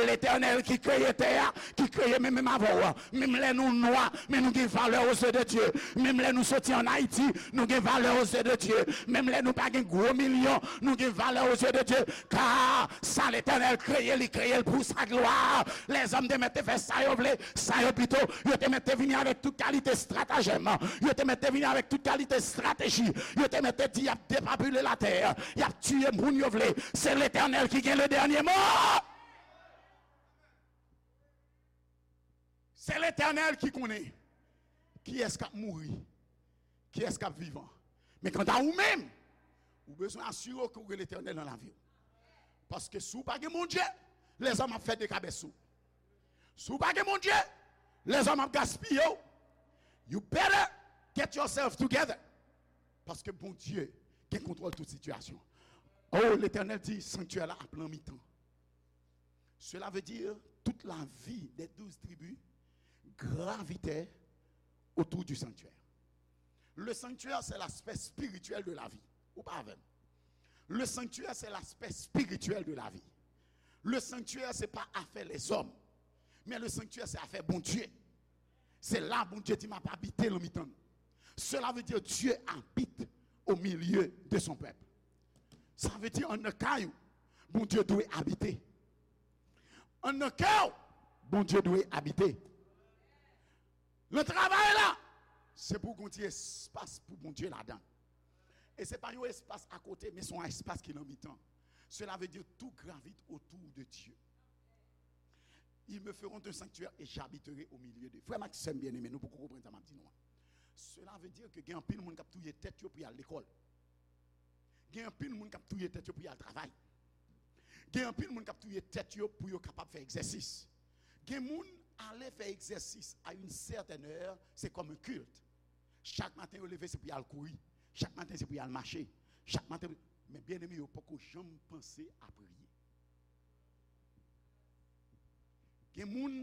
Letènèl ki kreye tè a, ki kreye mwen menm avè w, menm lè nou nwa, men nou gen valè aux yeux de Dieu. Menm lè nou soti ann Ayiti, nou gen valè aux yeux de Dieu. Menm lè nou pa gen gwo milyon, nou gen valè aux yeux de Dieu. Car ça, l'Éternel kreye, li kreye l pou sa glwa. Lèzòm te mèt te fè sa yo vle, sa yo pito. Yo te mèt te vini avèk tout kalite estratejèm. Yo te mèt te vini avèk tout kalite estrateji. Yo te mèt te di y ap depopile latè. Y ap tiye moun yo vle. Se Letènèl ki gen le dènye mo. Se Letènèl ki konnen kiyès k ap mouri, kiyès k ap vivan. Men kanta ou menm, ou bezwen asire w ke w gen Letènèl nan lavi w. Paske si w pa gen Bondye, lèzòm ap fè dekabès sou w. Si w pa gen Bondye, lèzòm ap gaspiye w. You better get yourself together. Paske Bondye gen kontwòl tout sitiyasyon. Oh, Letènèl di, sanktyè la ap nan mitan. Cela veut dire toute la vie des douze tribus gravitait autour du sanctuaire. Le sanctuaire, c'est l'aspect spirituel de la vie. Ou pa avè m? Le sanctuaire, c'est l'aspect spirituel de la vie. Le sanctuaire, c'est pas affaire les hommes. Mais le sanctuaire, c'est affaire Bondye. Se la Bondye di, "M ap abite nan mitan nou." Cela veut dire Dieu habite au milieu de son peuple. Sa vle di, ann nan kay ou, Bondye dwe abite. Ann nan kè w, Bondye dwe abite. Nan travay la, se pou w gen yon ti espas pou Bondye ladan. E se pa yon espas akote, men se yon espas ki nan mitan. Cela veut dire tout gravite autour de Dieu. Ils me feront un sanctuaire et j'habiterai au milieu d'eux. Frè m ak sè m byeneme, nou poko konprann sa m ap di nou an. Cela veut dire que gen anpil moun k ap touye tèt yo pou y al lekòl. Gen anpil moun k ap touye tèt yo pou y al travay. Gen anpil moun k ap touye tèt yo pou yo kapab fè egzèsis. Gen moun, ale fè egzèsis à une certaine heure, c'est comme un culte. Chak maten yo leve, se pou y al kouri. Chak maten, se pou y al mache. Chak maten, men byeneme, yo poko janm panse a priye. Gen moun,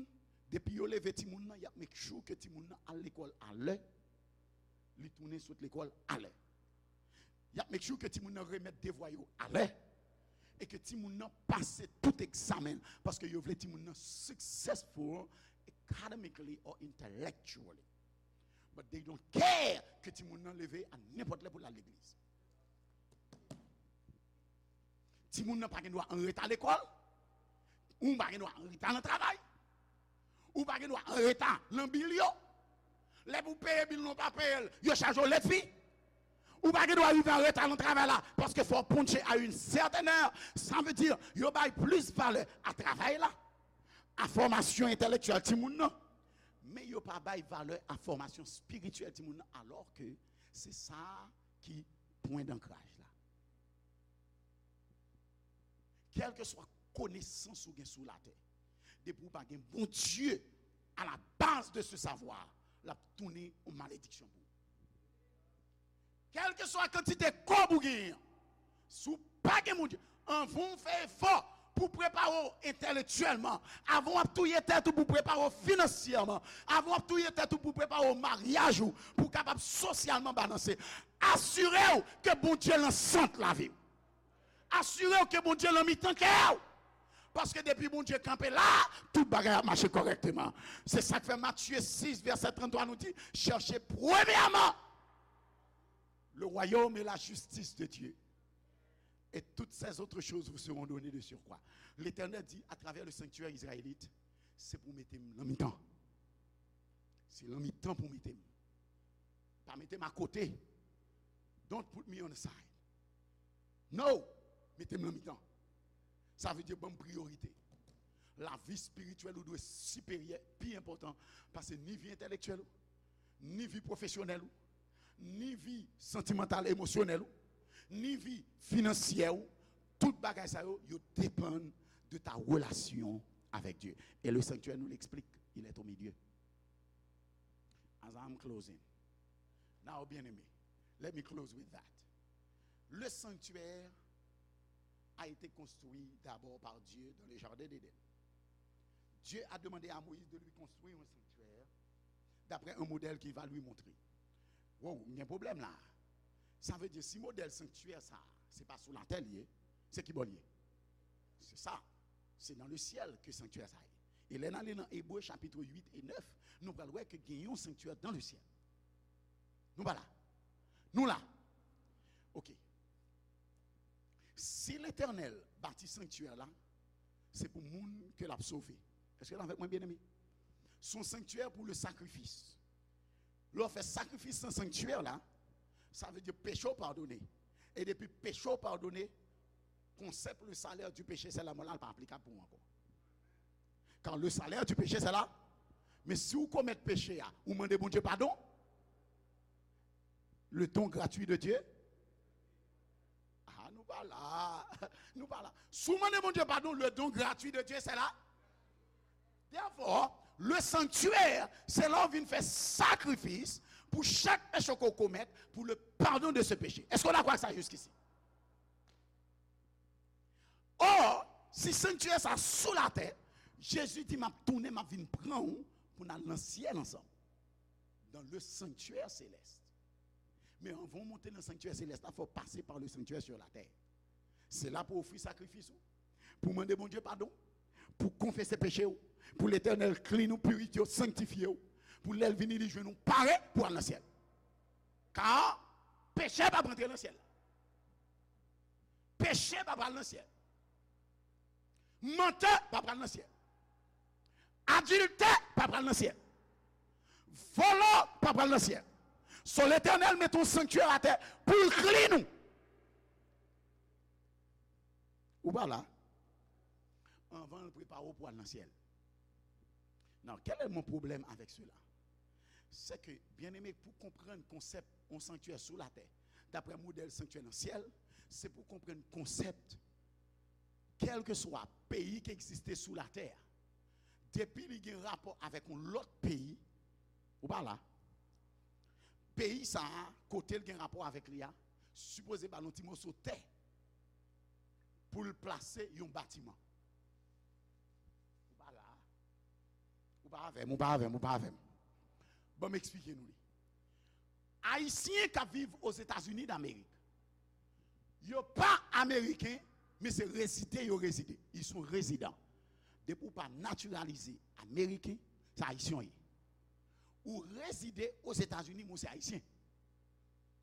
depi yo leve timoun nan, y ap make sure ke timoun nan al lekòl alè, li tounen sot lekòl alè. Y ap make sure ke timoun nan remèt devwa yo alè, e ke timoun nan pase tout egzamen, paske yo vle timoun nan successful academically or intellectually. But they don't care ke timoun nan leve a nenpòt lè pou l al legliz. Timoun nan pa gen dwa anreta lekòl. Ou pa gen dwa anreta nan travay. Ou pa gen dwa anreta nan bil yo. Lè pou peye bil nou pa peye l, yo chaje w late fee. Ou pa gen dwa rive anreta nan travay la, paske fò w ponche à une certaine heure. Sa vle di, yo bay plis valè a travay la, a fòmasyon entèlektyèl timoun nan, men yo pa bay valè a fòmasyon espirityèl timoun nan, alò ke se sa ki pwen dankraj la. Kèlkeswa konesans ou gen sou latè, depi ou pa gen Bondye à la base de ce savoir, l ap tounen yon malediksyon pou ou. Kèlkeswa kantite kòb ou genyen an, si w pa gen Bondye, anvan w fè efò pou w prepare w entèlektyèlman, avan w ap touye tèt ou pou w prepare w finansyèman, avan w ap touye tèt ou pou w prepare w maryaj ou, pou w kapab sosyalman balanse, asire w ke Bondye nan sant lavi w. Asire w ke Bondye nan mitan kè w. Paske depi Bondye kanpe la, tout bagay ap mache kòrèkteman. Se sa k fè Matye sis, vèsè tranntwa nou di, cherchez premièrement le royaume et la justice de Dieu, et toutes ces autres choses vous seront données de surcroît. Letènèl di, atravè le sanctuaire israélite, se pou w mete m nan mitan. Se nan mitan pou w mete m. Pa mete m akote. Don't put me on the side. No! Mete m nan mitan. Sa vle di ban m priyorite. Lavi espirityèl ou dwe siperyè, pi enpòtan pase ni vi entèlektyèl ou, ni vi pwofesyonèl ou, ni vi santimantal, emosyonèl ou, ni vi finansyè ou. Tout bagay sa yo, yo depann de ta relation avec Dieu. Et le sanctuaire nous l'explique, il est au milieu. As I'm closing. Now, bien-aimé, let me close with that. Le sanctuaire a été construit d'abord par Dieu dans le jardin d'Éden. Dieu a demandé à Moïse de lui construire un sanctuaire d'après un modèle qu'il va lui montrer. Wow, gen pwoblèm la. Sa vle di, si modèl sanktyè sa, se pa sou latè li ye, se ki bò li ye? Se sa. Se dans le ciel que sanctuaire sa ye. E lè n ale nan Ebre chapit uit e nèf, nou pral wè ke gen yon sanktyè dans le ciel. Nou pa la? Nou la. Ok. Si Letènèl bati sanktyè la, se pou moun ke l ap sove. Èske w avèk mwen, byeneme? Se yon sanktyè pou le sakrifis. Lè w fè sakrifis nan sanktyè la, sa vle di peche w padone. E depi peche w padone, konsèp le salaire du péché, c'est la mort la, l pa aplikab pou ou ankò. Car le salaire du péché, c'est la. Men si w komèt peche a, ou mande Bondye padon, le don gratuit de Dieu, ah, nou pa la. Nou pa la. Si w mande Bondye padon, le don gratuit de Dieu, c'est la. Therefore, le sanctuaire, se la w vin fè sakrifis pou chak peche ke w komèt, pour le pardon de ce péché. Èske w dakò ak sa jiskisi? Or, si sanktyè sa sou latè, Jezi di, "M ap tounen, m ap vin pran w pou n al nan syèl ansanm." Dans le sanctuaire céleste. Men anvan w monte nan sanktyè selès la, fò w pase pa le sanctuaire sur la terre. Se la pou w ofri sakrifis ou, pou w mande Bondye padon, pou w konfese peche w, pou Letènèl clean ou, purifye w, sanktifye w, pou lè l vini, li jwenn ou pare pou al nan syèl. Ka peche p ap antre nan syèl la. Peche pa pral nan syèl. Mantè pa pral nan syèl. Adiltè pa pral nan syèl. Vòlò pa pral nan syèl. So, Letènèl mete yon sanktyè atè pou l clean ou. Ou pa la? Anvan l prepare w pou al nan syèl. Now, quel est mon problème avec cela? C'est que, bien-aimé, pou konprann konsèp yon sanktyè sou latè, daprè modèl sanktyè nan syèl, se pou konprann konsèp kèlkeswa peyi ki egziste sou latè a, depi li gen rapò avèk yon lòt peyi, ou pa la, peyi sa a, kote l gen rapò avèk li a, sipoze ba l yon ti moso tè pou l plase yon batiman. Ou pa la. Ou pa avè m, ou pa avè m, ou pa avè m. Ban m eksplike nou li. Ayisyen k ap viv Ozetazini Damerik, yo pa Ameriken, men se rezide yo rezide. Ils sont résidents. Depi w pa natiralize Ameriken, se Ayisyen w ye. Ou rezide Ozetazini, men w se Ayisyen.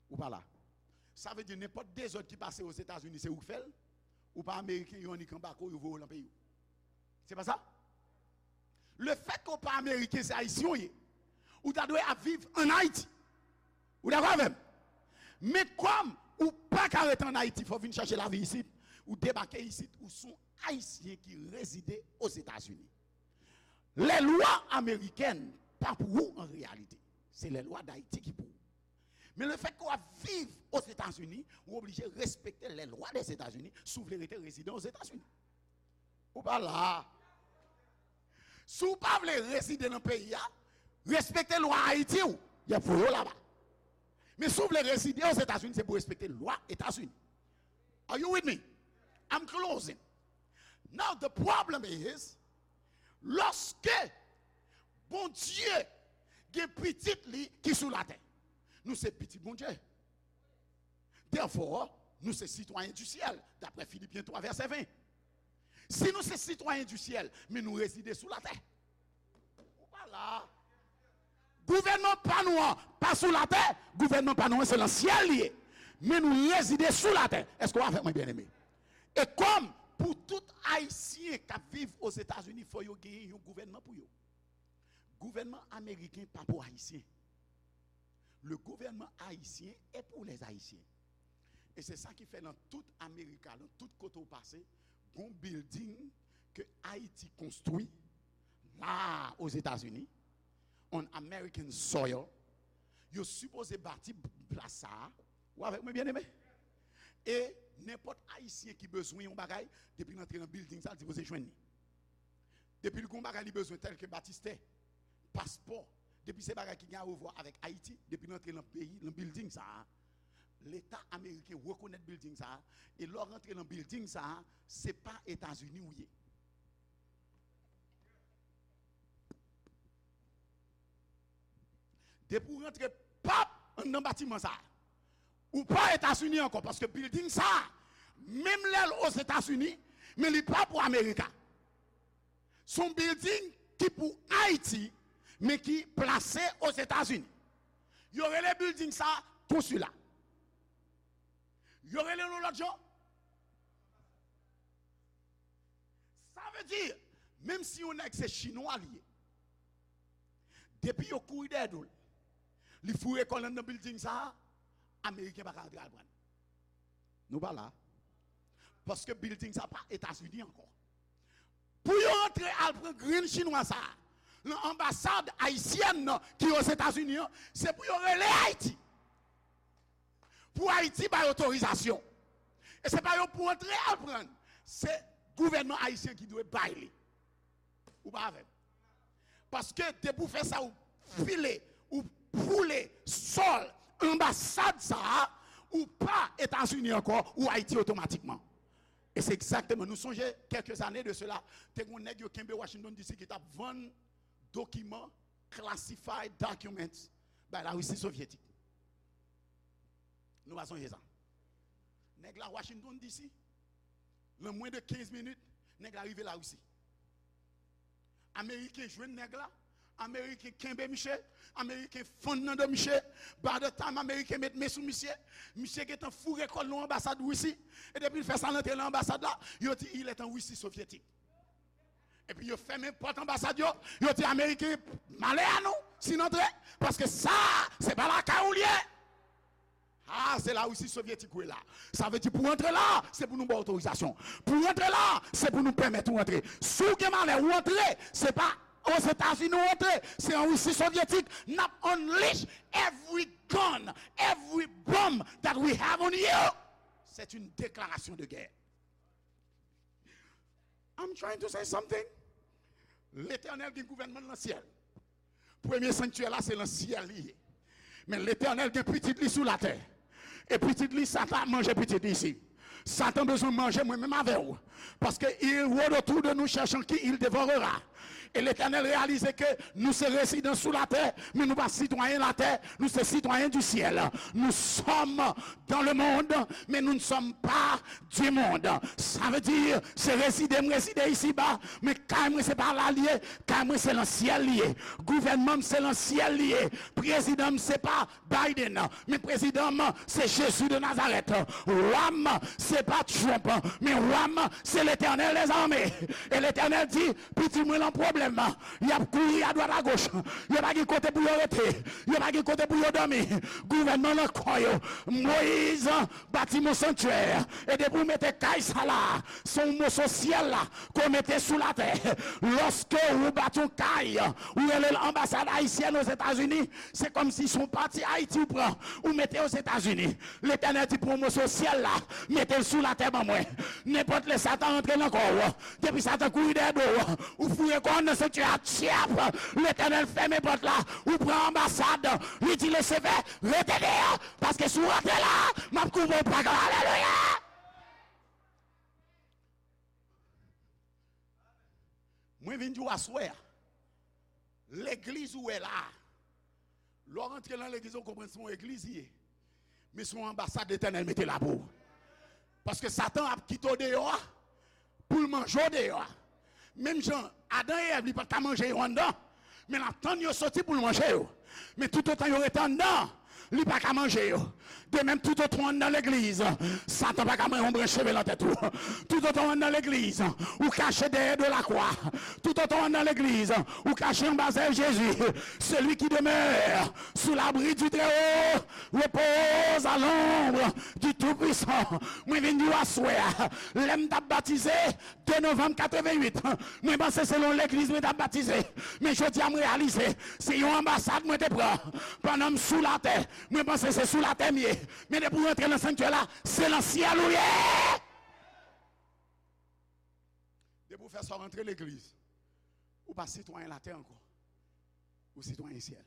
Ou pa la. Sa vle di nenpòt dezòd ki pase Ozetazini, se ou k fè l. Ou pa Ameriken, yo annik anbake w, yo voye w nan peyi w. Se pa sa? Le fèt ke w pa Ameriken, se Ayisyen w ye. Ou ta dwe ap viv ann Ayiti. Ou dakò avè m? Men kòm ou pa ka rete ann Ayiti, fò w vin chache lavi isit. Ou debake isit, ou se yon Ayisyen ki rezide Ozetazini. Lèlwa amerikèn pa pou ou an reyalite. Se lèlwa Dayiti ki pou ou. Men le fèt ke w ap viv Ozetazini, ou oblije respekte lèlwa Dèzetazini si w vle rete rezidan Ozetazini. Ou pa la. Si w pa vle rezide nan peyi a, respekte lwa Ayiti w, y ap voye w laba. Men si w vle rezide Ozetazini, se pou w respekte lwa Etazini. Are you with me? I'm closing. Now, the problem is, lòske Bondye gen pitit li ki sou latè, nou se pitit Bondye. Therefore, nou se sitwayen di syèl, daprè Filipyen twa vèsè ven. Si nou se sitwayen di syèl, men nou rezide sou latè. Ou pa la. Gouvènman pa nou an pa sou latè, gouvènman pa nou an se nan syèl li ye. Men nou rezide sou latè. Èske w avèk mwen, byeneme? E kòm pou tout Ayisyen k ap viv Ozetazini, fò yo genyen yon gouvènman pou yo. Gouvènman ameriken pa pou Ayisyen. Le gouvernement haïtien est pour les Haïtiens. E se sa ki fè nan tout Amerika, nan tout kote w pase, gon building ke Ayiti konstwi la, Ozetazini, on American soil, yo sipoze bati plas sa a. Ou avèk mwen, byeneme? E nenpòt Ayisyen ki bezwen yon bagay, depi l antre nan building sa, l sipoze jwenn li. Depi l gen yon bagay li bezwen, tèlke batistè, paspò, depi se bagay ki gen a wè avèk Ayiti, depi l antre nan peyi, nan bilding sa a, Leta ameriken rekonèt bilding sa a, e lè w rantre nan bilding sa a, se pa Etazini w ye. Depi w rantre pap anndan batiman sa a, ou pa Etazini ankò, paske bilding sa a, menm lè l Ozetazini, men li pa pou Amerika. Se yon bilding ki pou Ayiti, men ki plase Ozetazini. Yo rele bilding sa a konsila. Yo rele l yon lòt jan. Sa vle di, menm si yon nèg se chinwa li ye, depi yo kouri dèyè do l, li foure kò l anndan bilding sa a, Ameriken pa ka antre al pran l. Nou pa la. Paske bilding sa pa Etazini ankò. Pou yo antre al pran grenn chinwa sa a, nan anbasad ayisyèn nan ki Ozetazini an, se pou yo rele Ayiti. Pou Ayiti bay otorizasyon. E se pa yo pou antre al pran l. Se gouvènman ayisyen ki dwe bay li. Ou pa avè m? Paske depi w fè sa, ou file, ou foule sòl anbasad sa a, ou pa Etazini ankò, ou Ayiti otomatikman. E se egzakteman, nou sonje, kèlke zane de sela, te gen yon nèg yo kenbe Washington D C ki t ap vann dokiman, classified documents, bay Larisi Sovyetik. Nou pa sonje sa? Nèg la Washington D C, nan mwens de kenz minit, nèg la rive Larisi. Ameriken jwenn nèg la, Ameriken kenbe misye, Ameriken fann nan do misye, by the time Ameriken met men sou misye, misye gentan foure kò l nan anbasad Risi, e depi l fè sa l antre nan anbasad la, yo di il est en Russie soviétique. Epi yo fèmen pòt anbasad yo, yo di Ameriken, malè a nou si n antre, paske sa a, se pa lakay ou l ye. Ah, se Larisi Sovyetik ou ye la. Sa vle di pou w antre la, se pou nou ba w otorizasyon. Pou w antre la, se pou nou pèmèt ou antre. Si w gen malè ou antre, se pa Ozetazini ou antre, se an Risi Sovyetik, n ap unleash every gun, every bomb that we have on you. C'est une déclaration de guerre. I'm trying to say something. Letènèl gen gouvènman l nan syèl. Premye sanktyè la, se nan syèl li ye. Men Letènèl gen pitit li sou latè. E pitit li, Satan ap manje pitit li isi. Satan bezwen manje mwen menm avè w. Paske il rôde autour de nous cherchant qui il dévorera. E Letènèl reyalize ke nou se rezidan sou latè, men nou pa sitwayen latè, nou se sitwayen du ciel. Nous sommes dans le monde, mais nous ne sommes pas du monde. Sa vle di, se rezide m rezide isiba, men kay mwen se pa la l ye, kay mwen se nan syèl li ye. Gouvènman m se nan syèl li ye. Prezidan m se pa Biden, men prezidan m se Jezi de Nazarèt. Wa m se pa Trump, men wa m se Letènèl dèzame. E Letènèl di, piti mwen lan pwoblèm, y ap kouri adwat agoch, yo pa gen kote pou yo rete, yo pa gen kote pou yo dòmi. Gouvènman lan kò yo. Moyiz bati yon sanktyè. E depi w mete kay sa la, se yon moso syèl la ke w mete sou latè. Lòske ou bati yon kay, ou rele l anbasad ayisyèn Ozetazini, se kòmsi se yon pati Ayiti ou pran, ou mete Ozetazini. Letènèl di pran yon moso syèl la, mete l sou latè ban mwen. Nenpòt lè Satan rantre nan kò w, depi Satan kouri dèyè do w, ou foure kò w nan sanktyè a, tchèp! Letènèl fèmen pòt la, ou pran anbasad, li di Lisifè, rete deyò, paske si w rantre la, m ap koupe w pa. Alelouya! Mwen vin di w aswè a, legliz ou wè la a, lè w rantre nan legliz ou konprann se yon legliz li ye. Men se yon anbasad Letènèl mete la pou ou. Paske Satan ap kite w deyò a pou l manje w deyò a. Menm jan Adan e Èv, li pa t ka manje yo anndan, men l ap tann yo soti pou l manje yo. Men toutotan yo rete anndan, li pa ka manje yo. De menm, toutotan w anndan legliz, Satan pa ka manje yon branch cheve nan tèt ou. Toutotan w anndan legliz, ou kache dèyè do lakwa. Toutotan w anndan legliz, ou kache anba zèl Jezi. Celui qui demeure sous l'abri du Très-Haut repose à l'ombre du Tout-Puissant. Mwen vin di w aswè a, lè m t ap batize, de novanm katreventuit, mwen panse se nan legliz mwen t ap batize. Men jodi a, m reyalize, se yon anbasad mwen te pran. Pandan m sou latè, mwen panse se sou latè m ye. Men depi w rantre nan sanktyè la, se nan syèl ou ye. Depi w fè sa, w rantre legliz. Ou pa sitwayen latè ankò. Ou sitwayen syèl.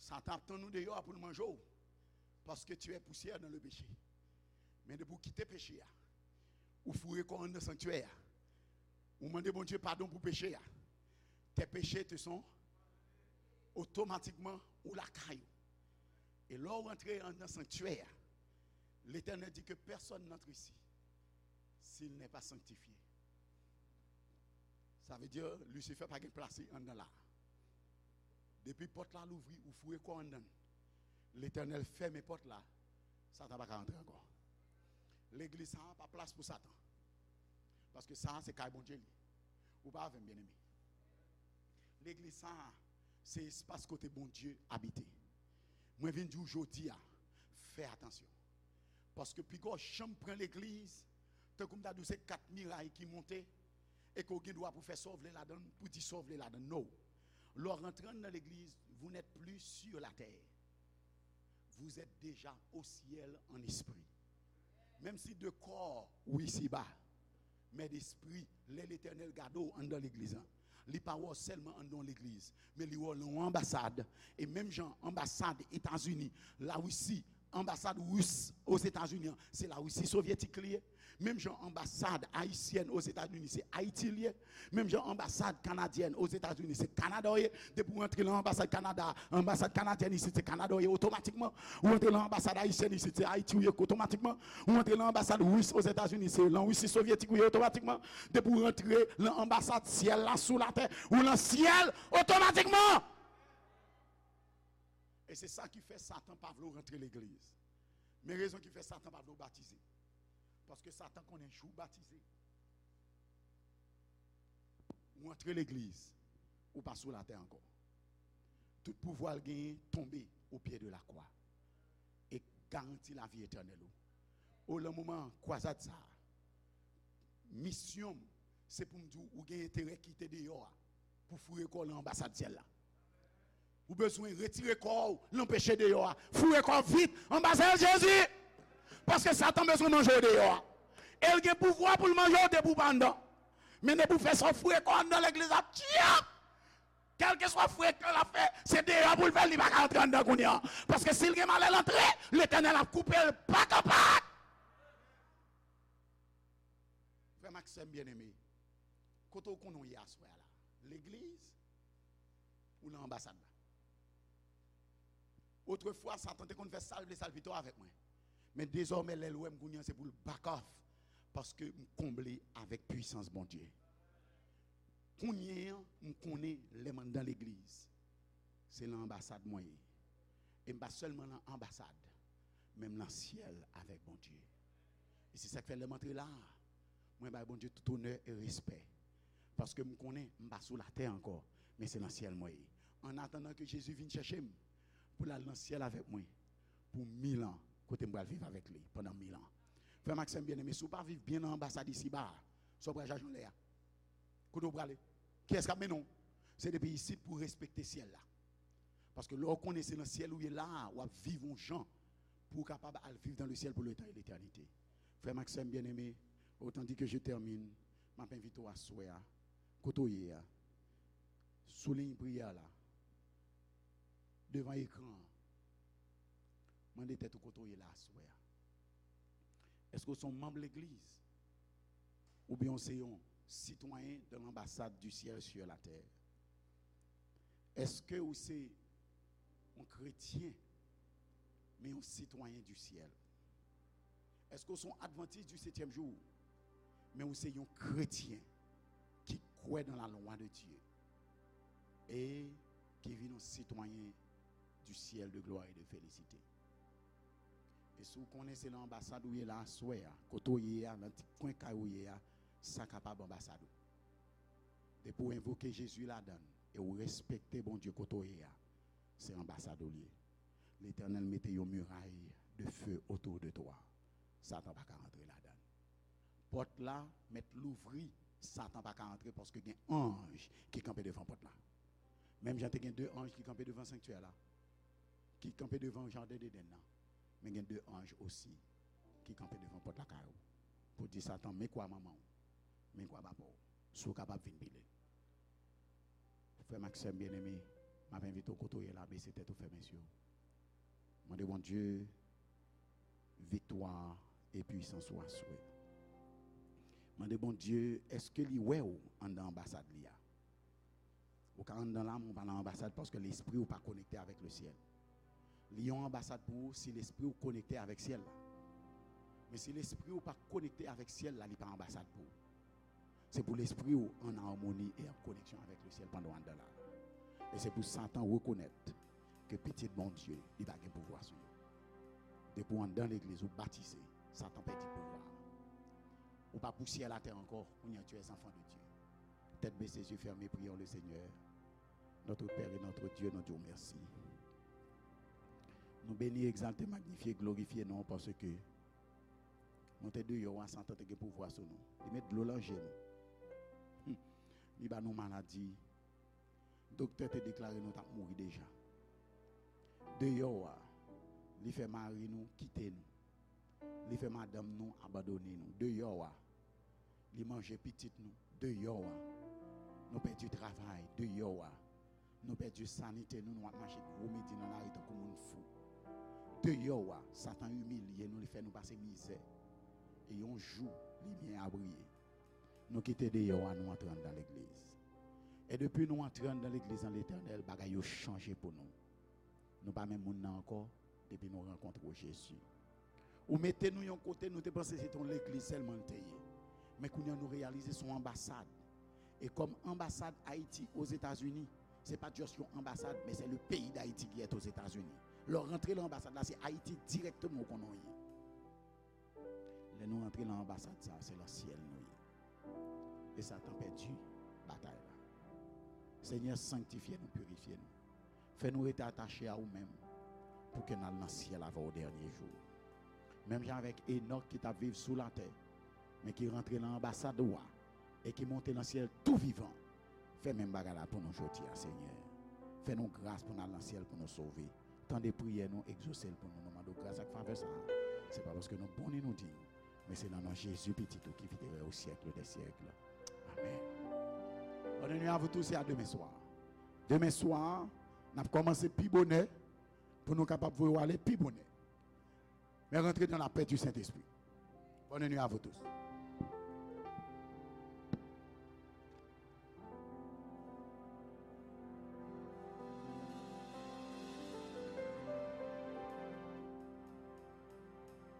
Satan ap tann ou deyò a pou l manje w. Paske tu es poussière dans le péché. Men depi w kite peche a, ou foure kò w anndan sanktyè a, ou mande Bondye padon pou peche a, tes péchés te sont otomatikman ou lakay ou. E lè w rantre anndan sanktyè a, Letènèl di ke pèsòn n'antre isi si l n'est pas sanctifié. Sa vle di Lisifè pa gen plas li anndan la. Depi pòt la louvri, ou foure kò w anndan l, Letènèl fèmen pòt la, Satan pa ka rantre ankò. Legliz sa a pa plas pou Satan. Paske sa a se kay Bondye li. Ou pa avè m, byeneme. Legliz sa a se espas kote Bondye abite. Mwen vin di w jodi a, fè atansyon. Paske piga w janm pran legliz, tankou m ta di w se kat miray ki monte, e ke w gen dwa pou fè sa w vle ladan l, pou di sa w vle ladan l. No. Lè w rantre anndan legliz, vous n'êtes plus sur la terre. Vous êtes déjà au ciel en esprit. Menm si de kò ou isiba, men despri, lè Letènèl gade w anndan legliz la, li pa wè w sèlman anndan yon legliz, men li wè w nan yon anbasad. E menm jan anbasad Etazini, Larisi, anbasad ris Ozetazini an, se Larisi sovyetik li ye. Menm jan anbasad ayisyèn Ozetazini, se Ayiti li ye. Menm jan anbasad kanadyèn Ozetazini, se Kanada w ye. Depi w rantre nan anbasad Kanada, anbasad kanadyèn isit, se Kanada w ye otomatikman. Ou rantre nan anbasad ayisyèn isit, se Ayiti w ye otomatikman. Ou rantre nan anbasad ris Ozetazini, se lan Risi sovyetik w ye otomatikman. Depi w rantre nan anbasad syèl la sou latè, ou lan syèl otomatikman. E se sa ki fè Satan pa vle w rantre legliz. Men rezon ki fè Satan pa vle w batize. Paske Satan konnen jou w batize, ou antre legliz, ou pa sou latè ankò. Tout pouvwa l genyen tonbe au pied de la croix. E garanti lavi etènèl ou. O, lan moman kwazad sa a, misyon m, se pou m di w, ou gen enterè kite deyò a pou foure kò w lan anbasad syèl la. Ou bezwen retire kò w lan peche deyò a. Foure kò w vit anba zèl Jezi. Paske Satan bezwen manje w deyò a. E l gen pouvwa pou l manje w depi w pa anndan. Men depi w fè sa, w foure kò w anndan legliz la, tchip! Kèlkeswa frekan l ap fè, se deyò pou l fè l, li pa ka antre anndan kounye a. Paske si l gen malè l antre, Letènèl ap koupe l pak an pak. Frè m ak sè m byeneme, kote w konnen w ye aswè a la? Legliz ou nan anbasad la? Otrefwa, Satan te konn fè sa l vle, sa l pito avèk mwen. Men dezòmè, lè l wè m kounye a, se pou l back off, paske m konble avèk pwisans Bondye. Kounye a, m konnen lè m anndan legliz, se lan anbasad mwen ye. E m pa sèlman lan anbasad, men m lan syèl avèk Bondye. E se sa k fè lè m antre la a, mwen bay Bondye tout onè e respè. Paske m konnen m pa sou latè ankò, men se lan syèl mwen ye. An atandan ke Jezi vin chèche m pou l al nan syèl avèk mwen pou mil an, kote m pral viv avèk li pandan mil an. Frè m ak sè m byeneme, si w pa viv byen nan anbasad isiba a, sa w pral chache anlè a? Kote w prale? Kiyès k ap mennen w? Se depi isit pou w respekte syèl la. Paske lè w konnen se nan syèl ou ye la a, w ap viv yon jan pou w kapab al viv dans le ciel pour le temps et l'éternité. Frè m ak sè m byeneme, otan di ke je tèmine, m ap envite w aswè a, kote w ye a, sou liy priyè la, devan ekran an, mande tèt ou kote w ye la aswè a. Èske w se yon manm legliz? Oubyen w se yon citoyen de l'ambassade du ciel sur la terre? Èske w se yon kretyen, men yon sitwayen di syèl? Èske w se yon advantis di setyèm jou, men w se yon kretyen ki kwè dans la loi de Dieu e ki vin yon sitwayen du ciel de gloire et de félicité? E si w konnen se nan anbasad ou ye la aswè a, kote w ye a, nan ti kwen kay ou ye a, sa kapab anbasad ou. Depi w envoke Jezi ladan l e w respekte Bondye kote w ye a, se anbasad ou l ye. Letènèl mete yon miray de feu autour de toi. Satan pa ka rantre ladan l. Pòt la mèt louvri, Satan pa ka antre paske gen anj ki kanpe devan pòt la. Menm jan te gen de anj ki kanpe devan sanktyè la, ki kanpe devan jaden Edenn nan, men gen de anj osi ki kanpe devan pòt lakay ou pou di Satan, men kwa manman w, men kwa papa w, si w kapab vin pile. Frè m ak sè m byeneme, m ap envite w kote w ye la, bese tèt ou, fèmen zye w. Mande Bondye viktwa e pwisans ou aswè. Mande Bondye, èske li wè w anndan anbasad li a? Ou ka anndan la, men ou pa nan anbasad paske lespri w pa konekte avèk lesyèl. Li yon anbasad pou ou si lespri w konekte avèk syèl la. Men si lespri w pa konekte avèk syèl la, li pa anbasad pou ou. Se pou lespri w an amoni e an koneksyon avèk lesyèl pandan w anndan la. E se pou Satan rekonèt ke pitit Bondye, li pa gen pouvwa sou yo. Depi w anndan legliz, ou batize, Satan pèdi pouvwa. Ou pa pou syèl atè ankò, kounye a tu es enfant de Dieu. Tèt bese, zye fèmen, priyons le Seigneur. Notre Père et notre Dieu, nou di w mèsi. Nou beni, egzalte, magnifye, glorifye non w paske nou te deyò a, Satan te gen pouvwa sou nou. Li met dlo nan je nou. Hmm. Li ba nou maladi. Doktè te deklare nou t ap mouri deja. Deyò a, li fè mari nou kite nou. Li fè madanm nou abandone nou. Deyò a, li manje pitit nou. Deyò a, nou pèdi travay. Deyò a, nou pèdi sanite nou. Nou ap mache gwo midi nan lari tankou moun fou. Deyò a, Satan imilye nou, li fè nou pase mizè. E yon jou, limyè a briye. Nou kite deyò a, nou antre anndan legliz. E depi nou antre anndan legliz an Letènèl, bagay yo chanje pou nou. Nou pa menm moun nan ankò depi nou rankontre Jezi. Ou mete nou yon kote, nou te panse se te yon legliz sèlman l te ye. Men kounye a nou reyalize se yon anbasad. E kòm anbasad Ayiti Ozetazini, se pa just yon anbasad, men se le pays d'Haïti qui est aux États-Unis. Lè w rantre nan anbasad la, se Ayiti dirèkteman ou konnen w ye. Lè nou rantre nan anbasad sa, se nan syèl nou ye. E Satan pèdi batay la. Senyè, sanktifye nou, pirifye nou. Fè nou rete atache a ou menm pou ke n al nan syèl avè w o dènye jou. Menm jan avèk Enòk ki t ap viv sou latè, men ki rantre nan anbasad ou a e ki monte nan syèl tou vivan. Fè menm bagay la pou nou jodi a, Senyè. Fè nou gras pou n al nan syèl pou nou sove. Tande priyè nou, egzose l pou nou. Nou mande w gras ak favè sa a. Se pa paske nou bon ni nou diy, men se nan non Jezi, Pitit ou, ki viv e règne au siècle des siècles. Amen. Bonne nuit à vous tous et à demain soir. Demen swa, n ap kòmanse pi bonè pou nou kapab voye w ale pi bonè. Men rantre dans la paix du Saint-Esprit. Bonne nuit à vous tous.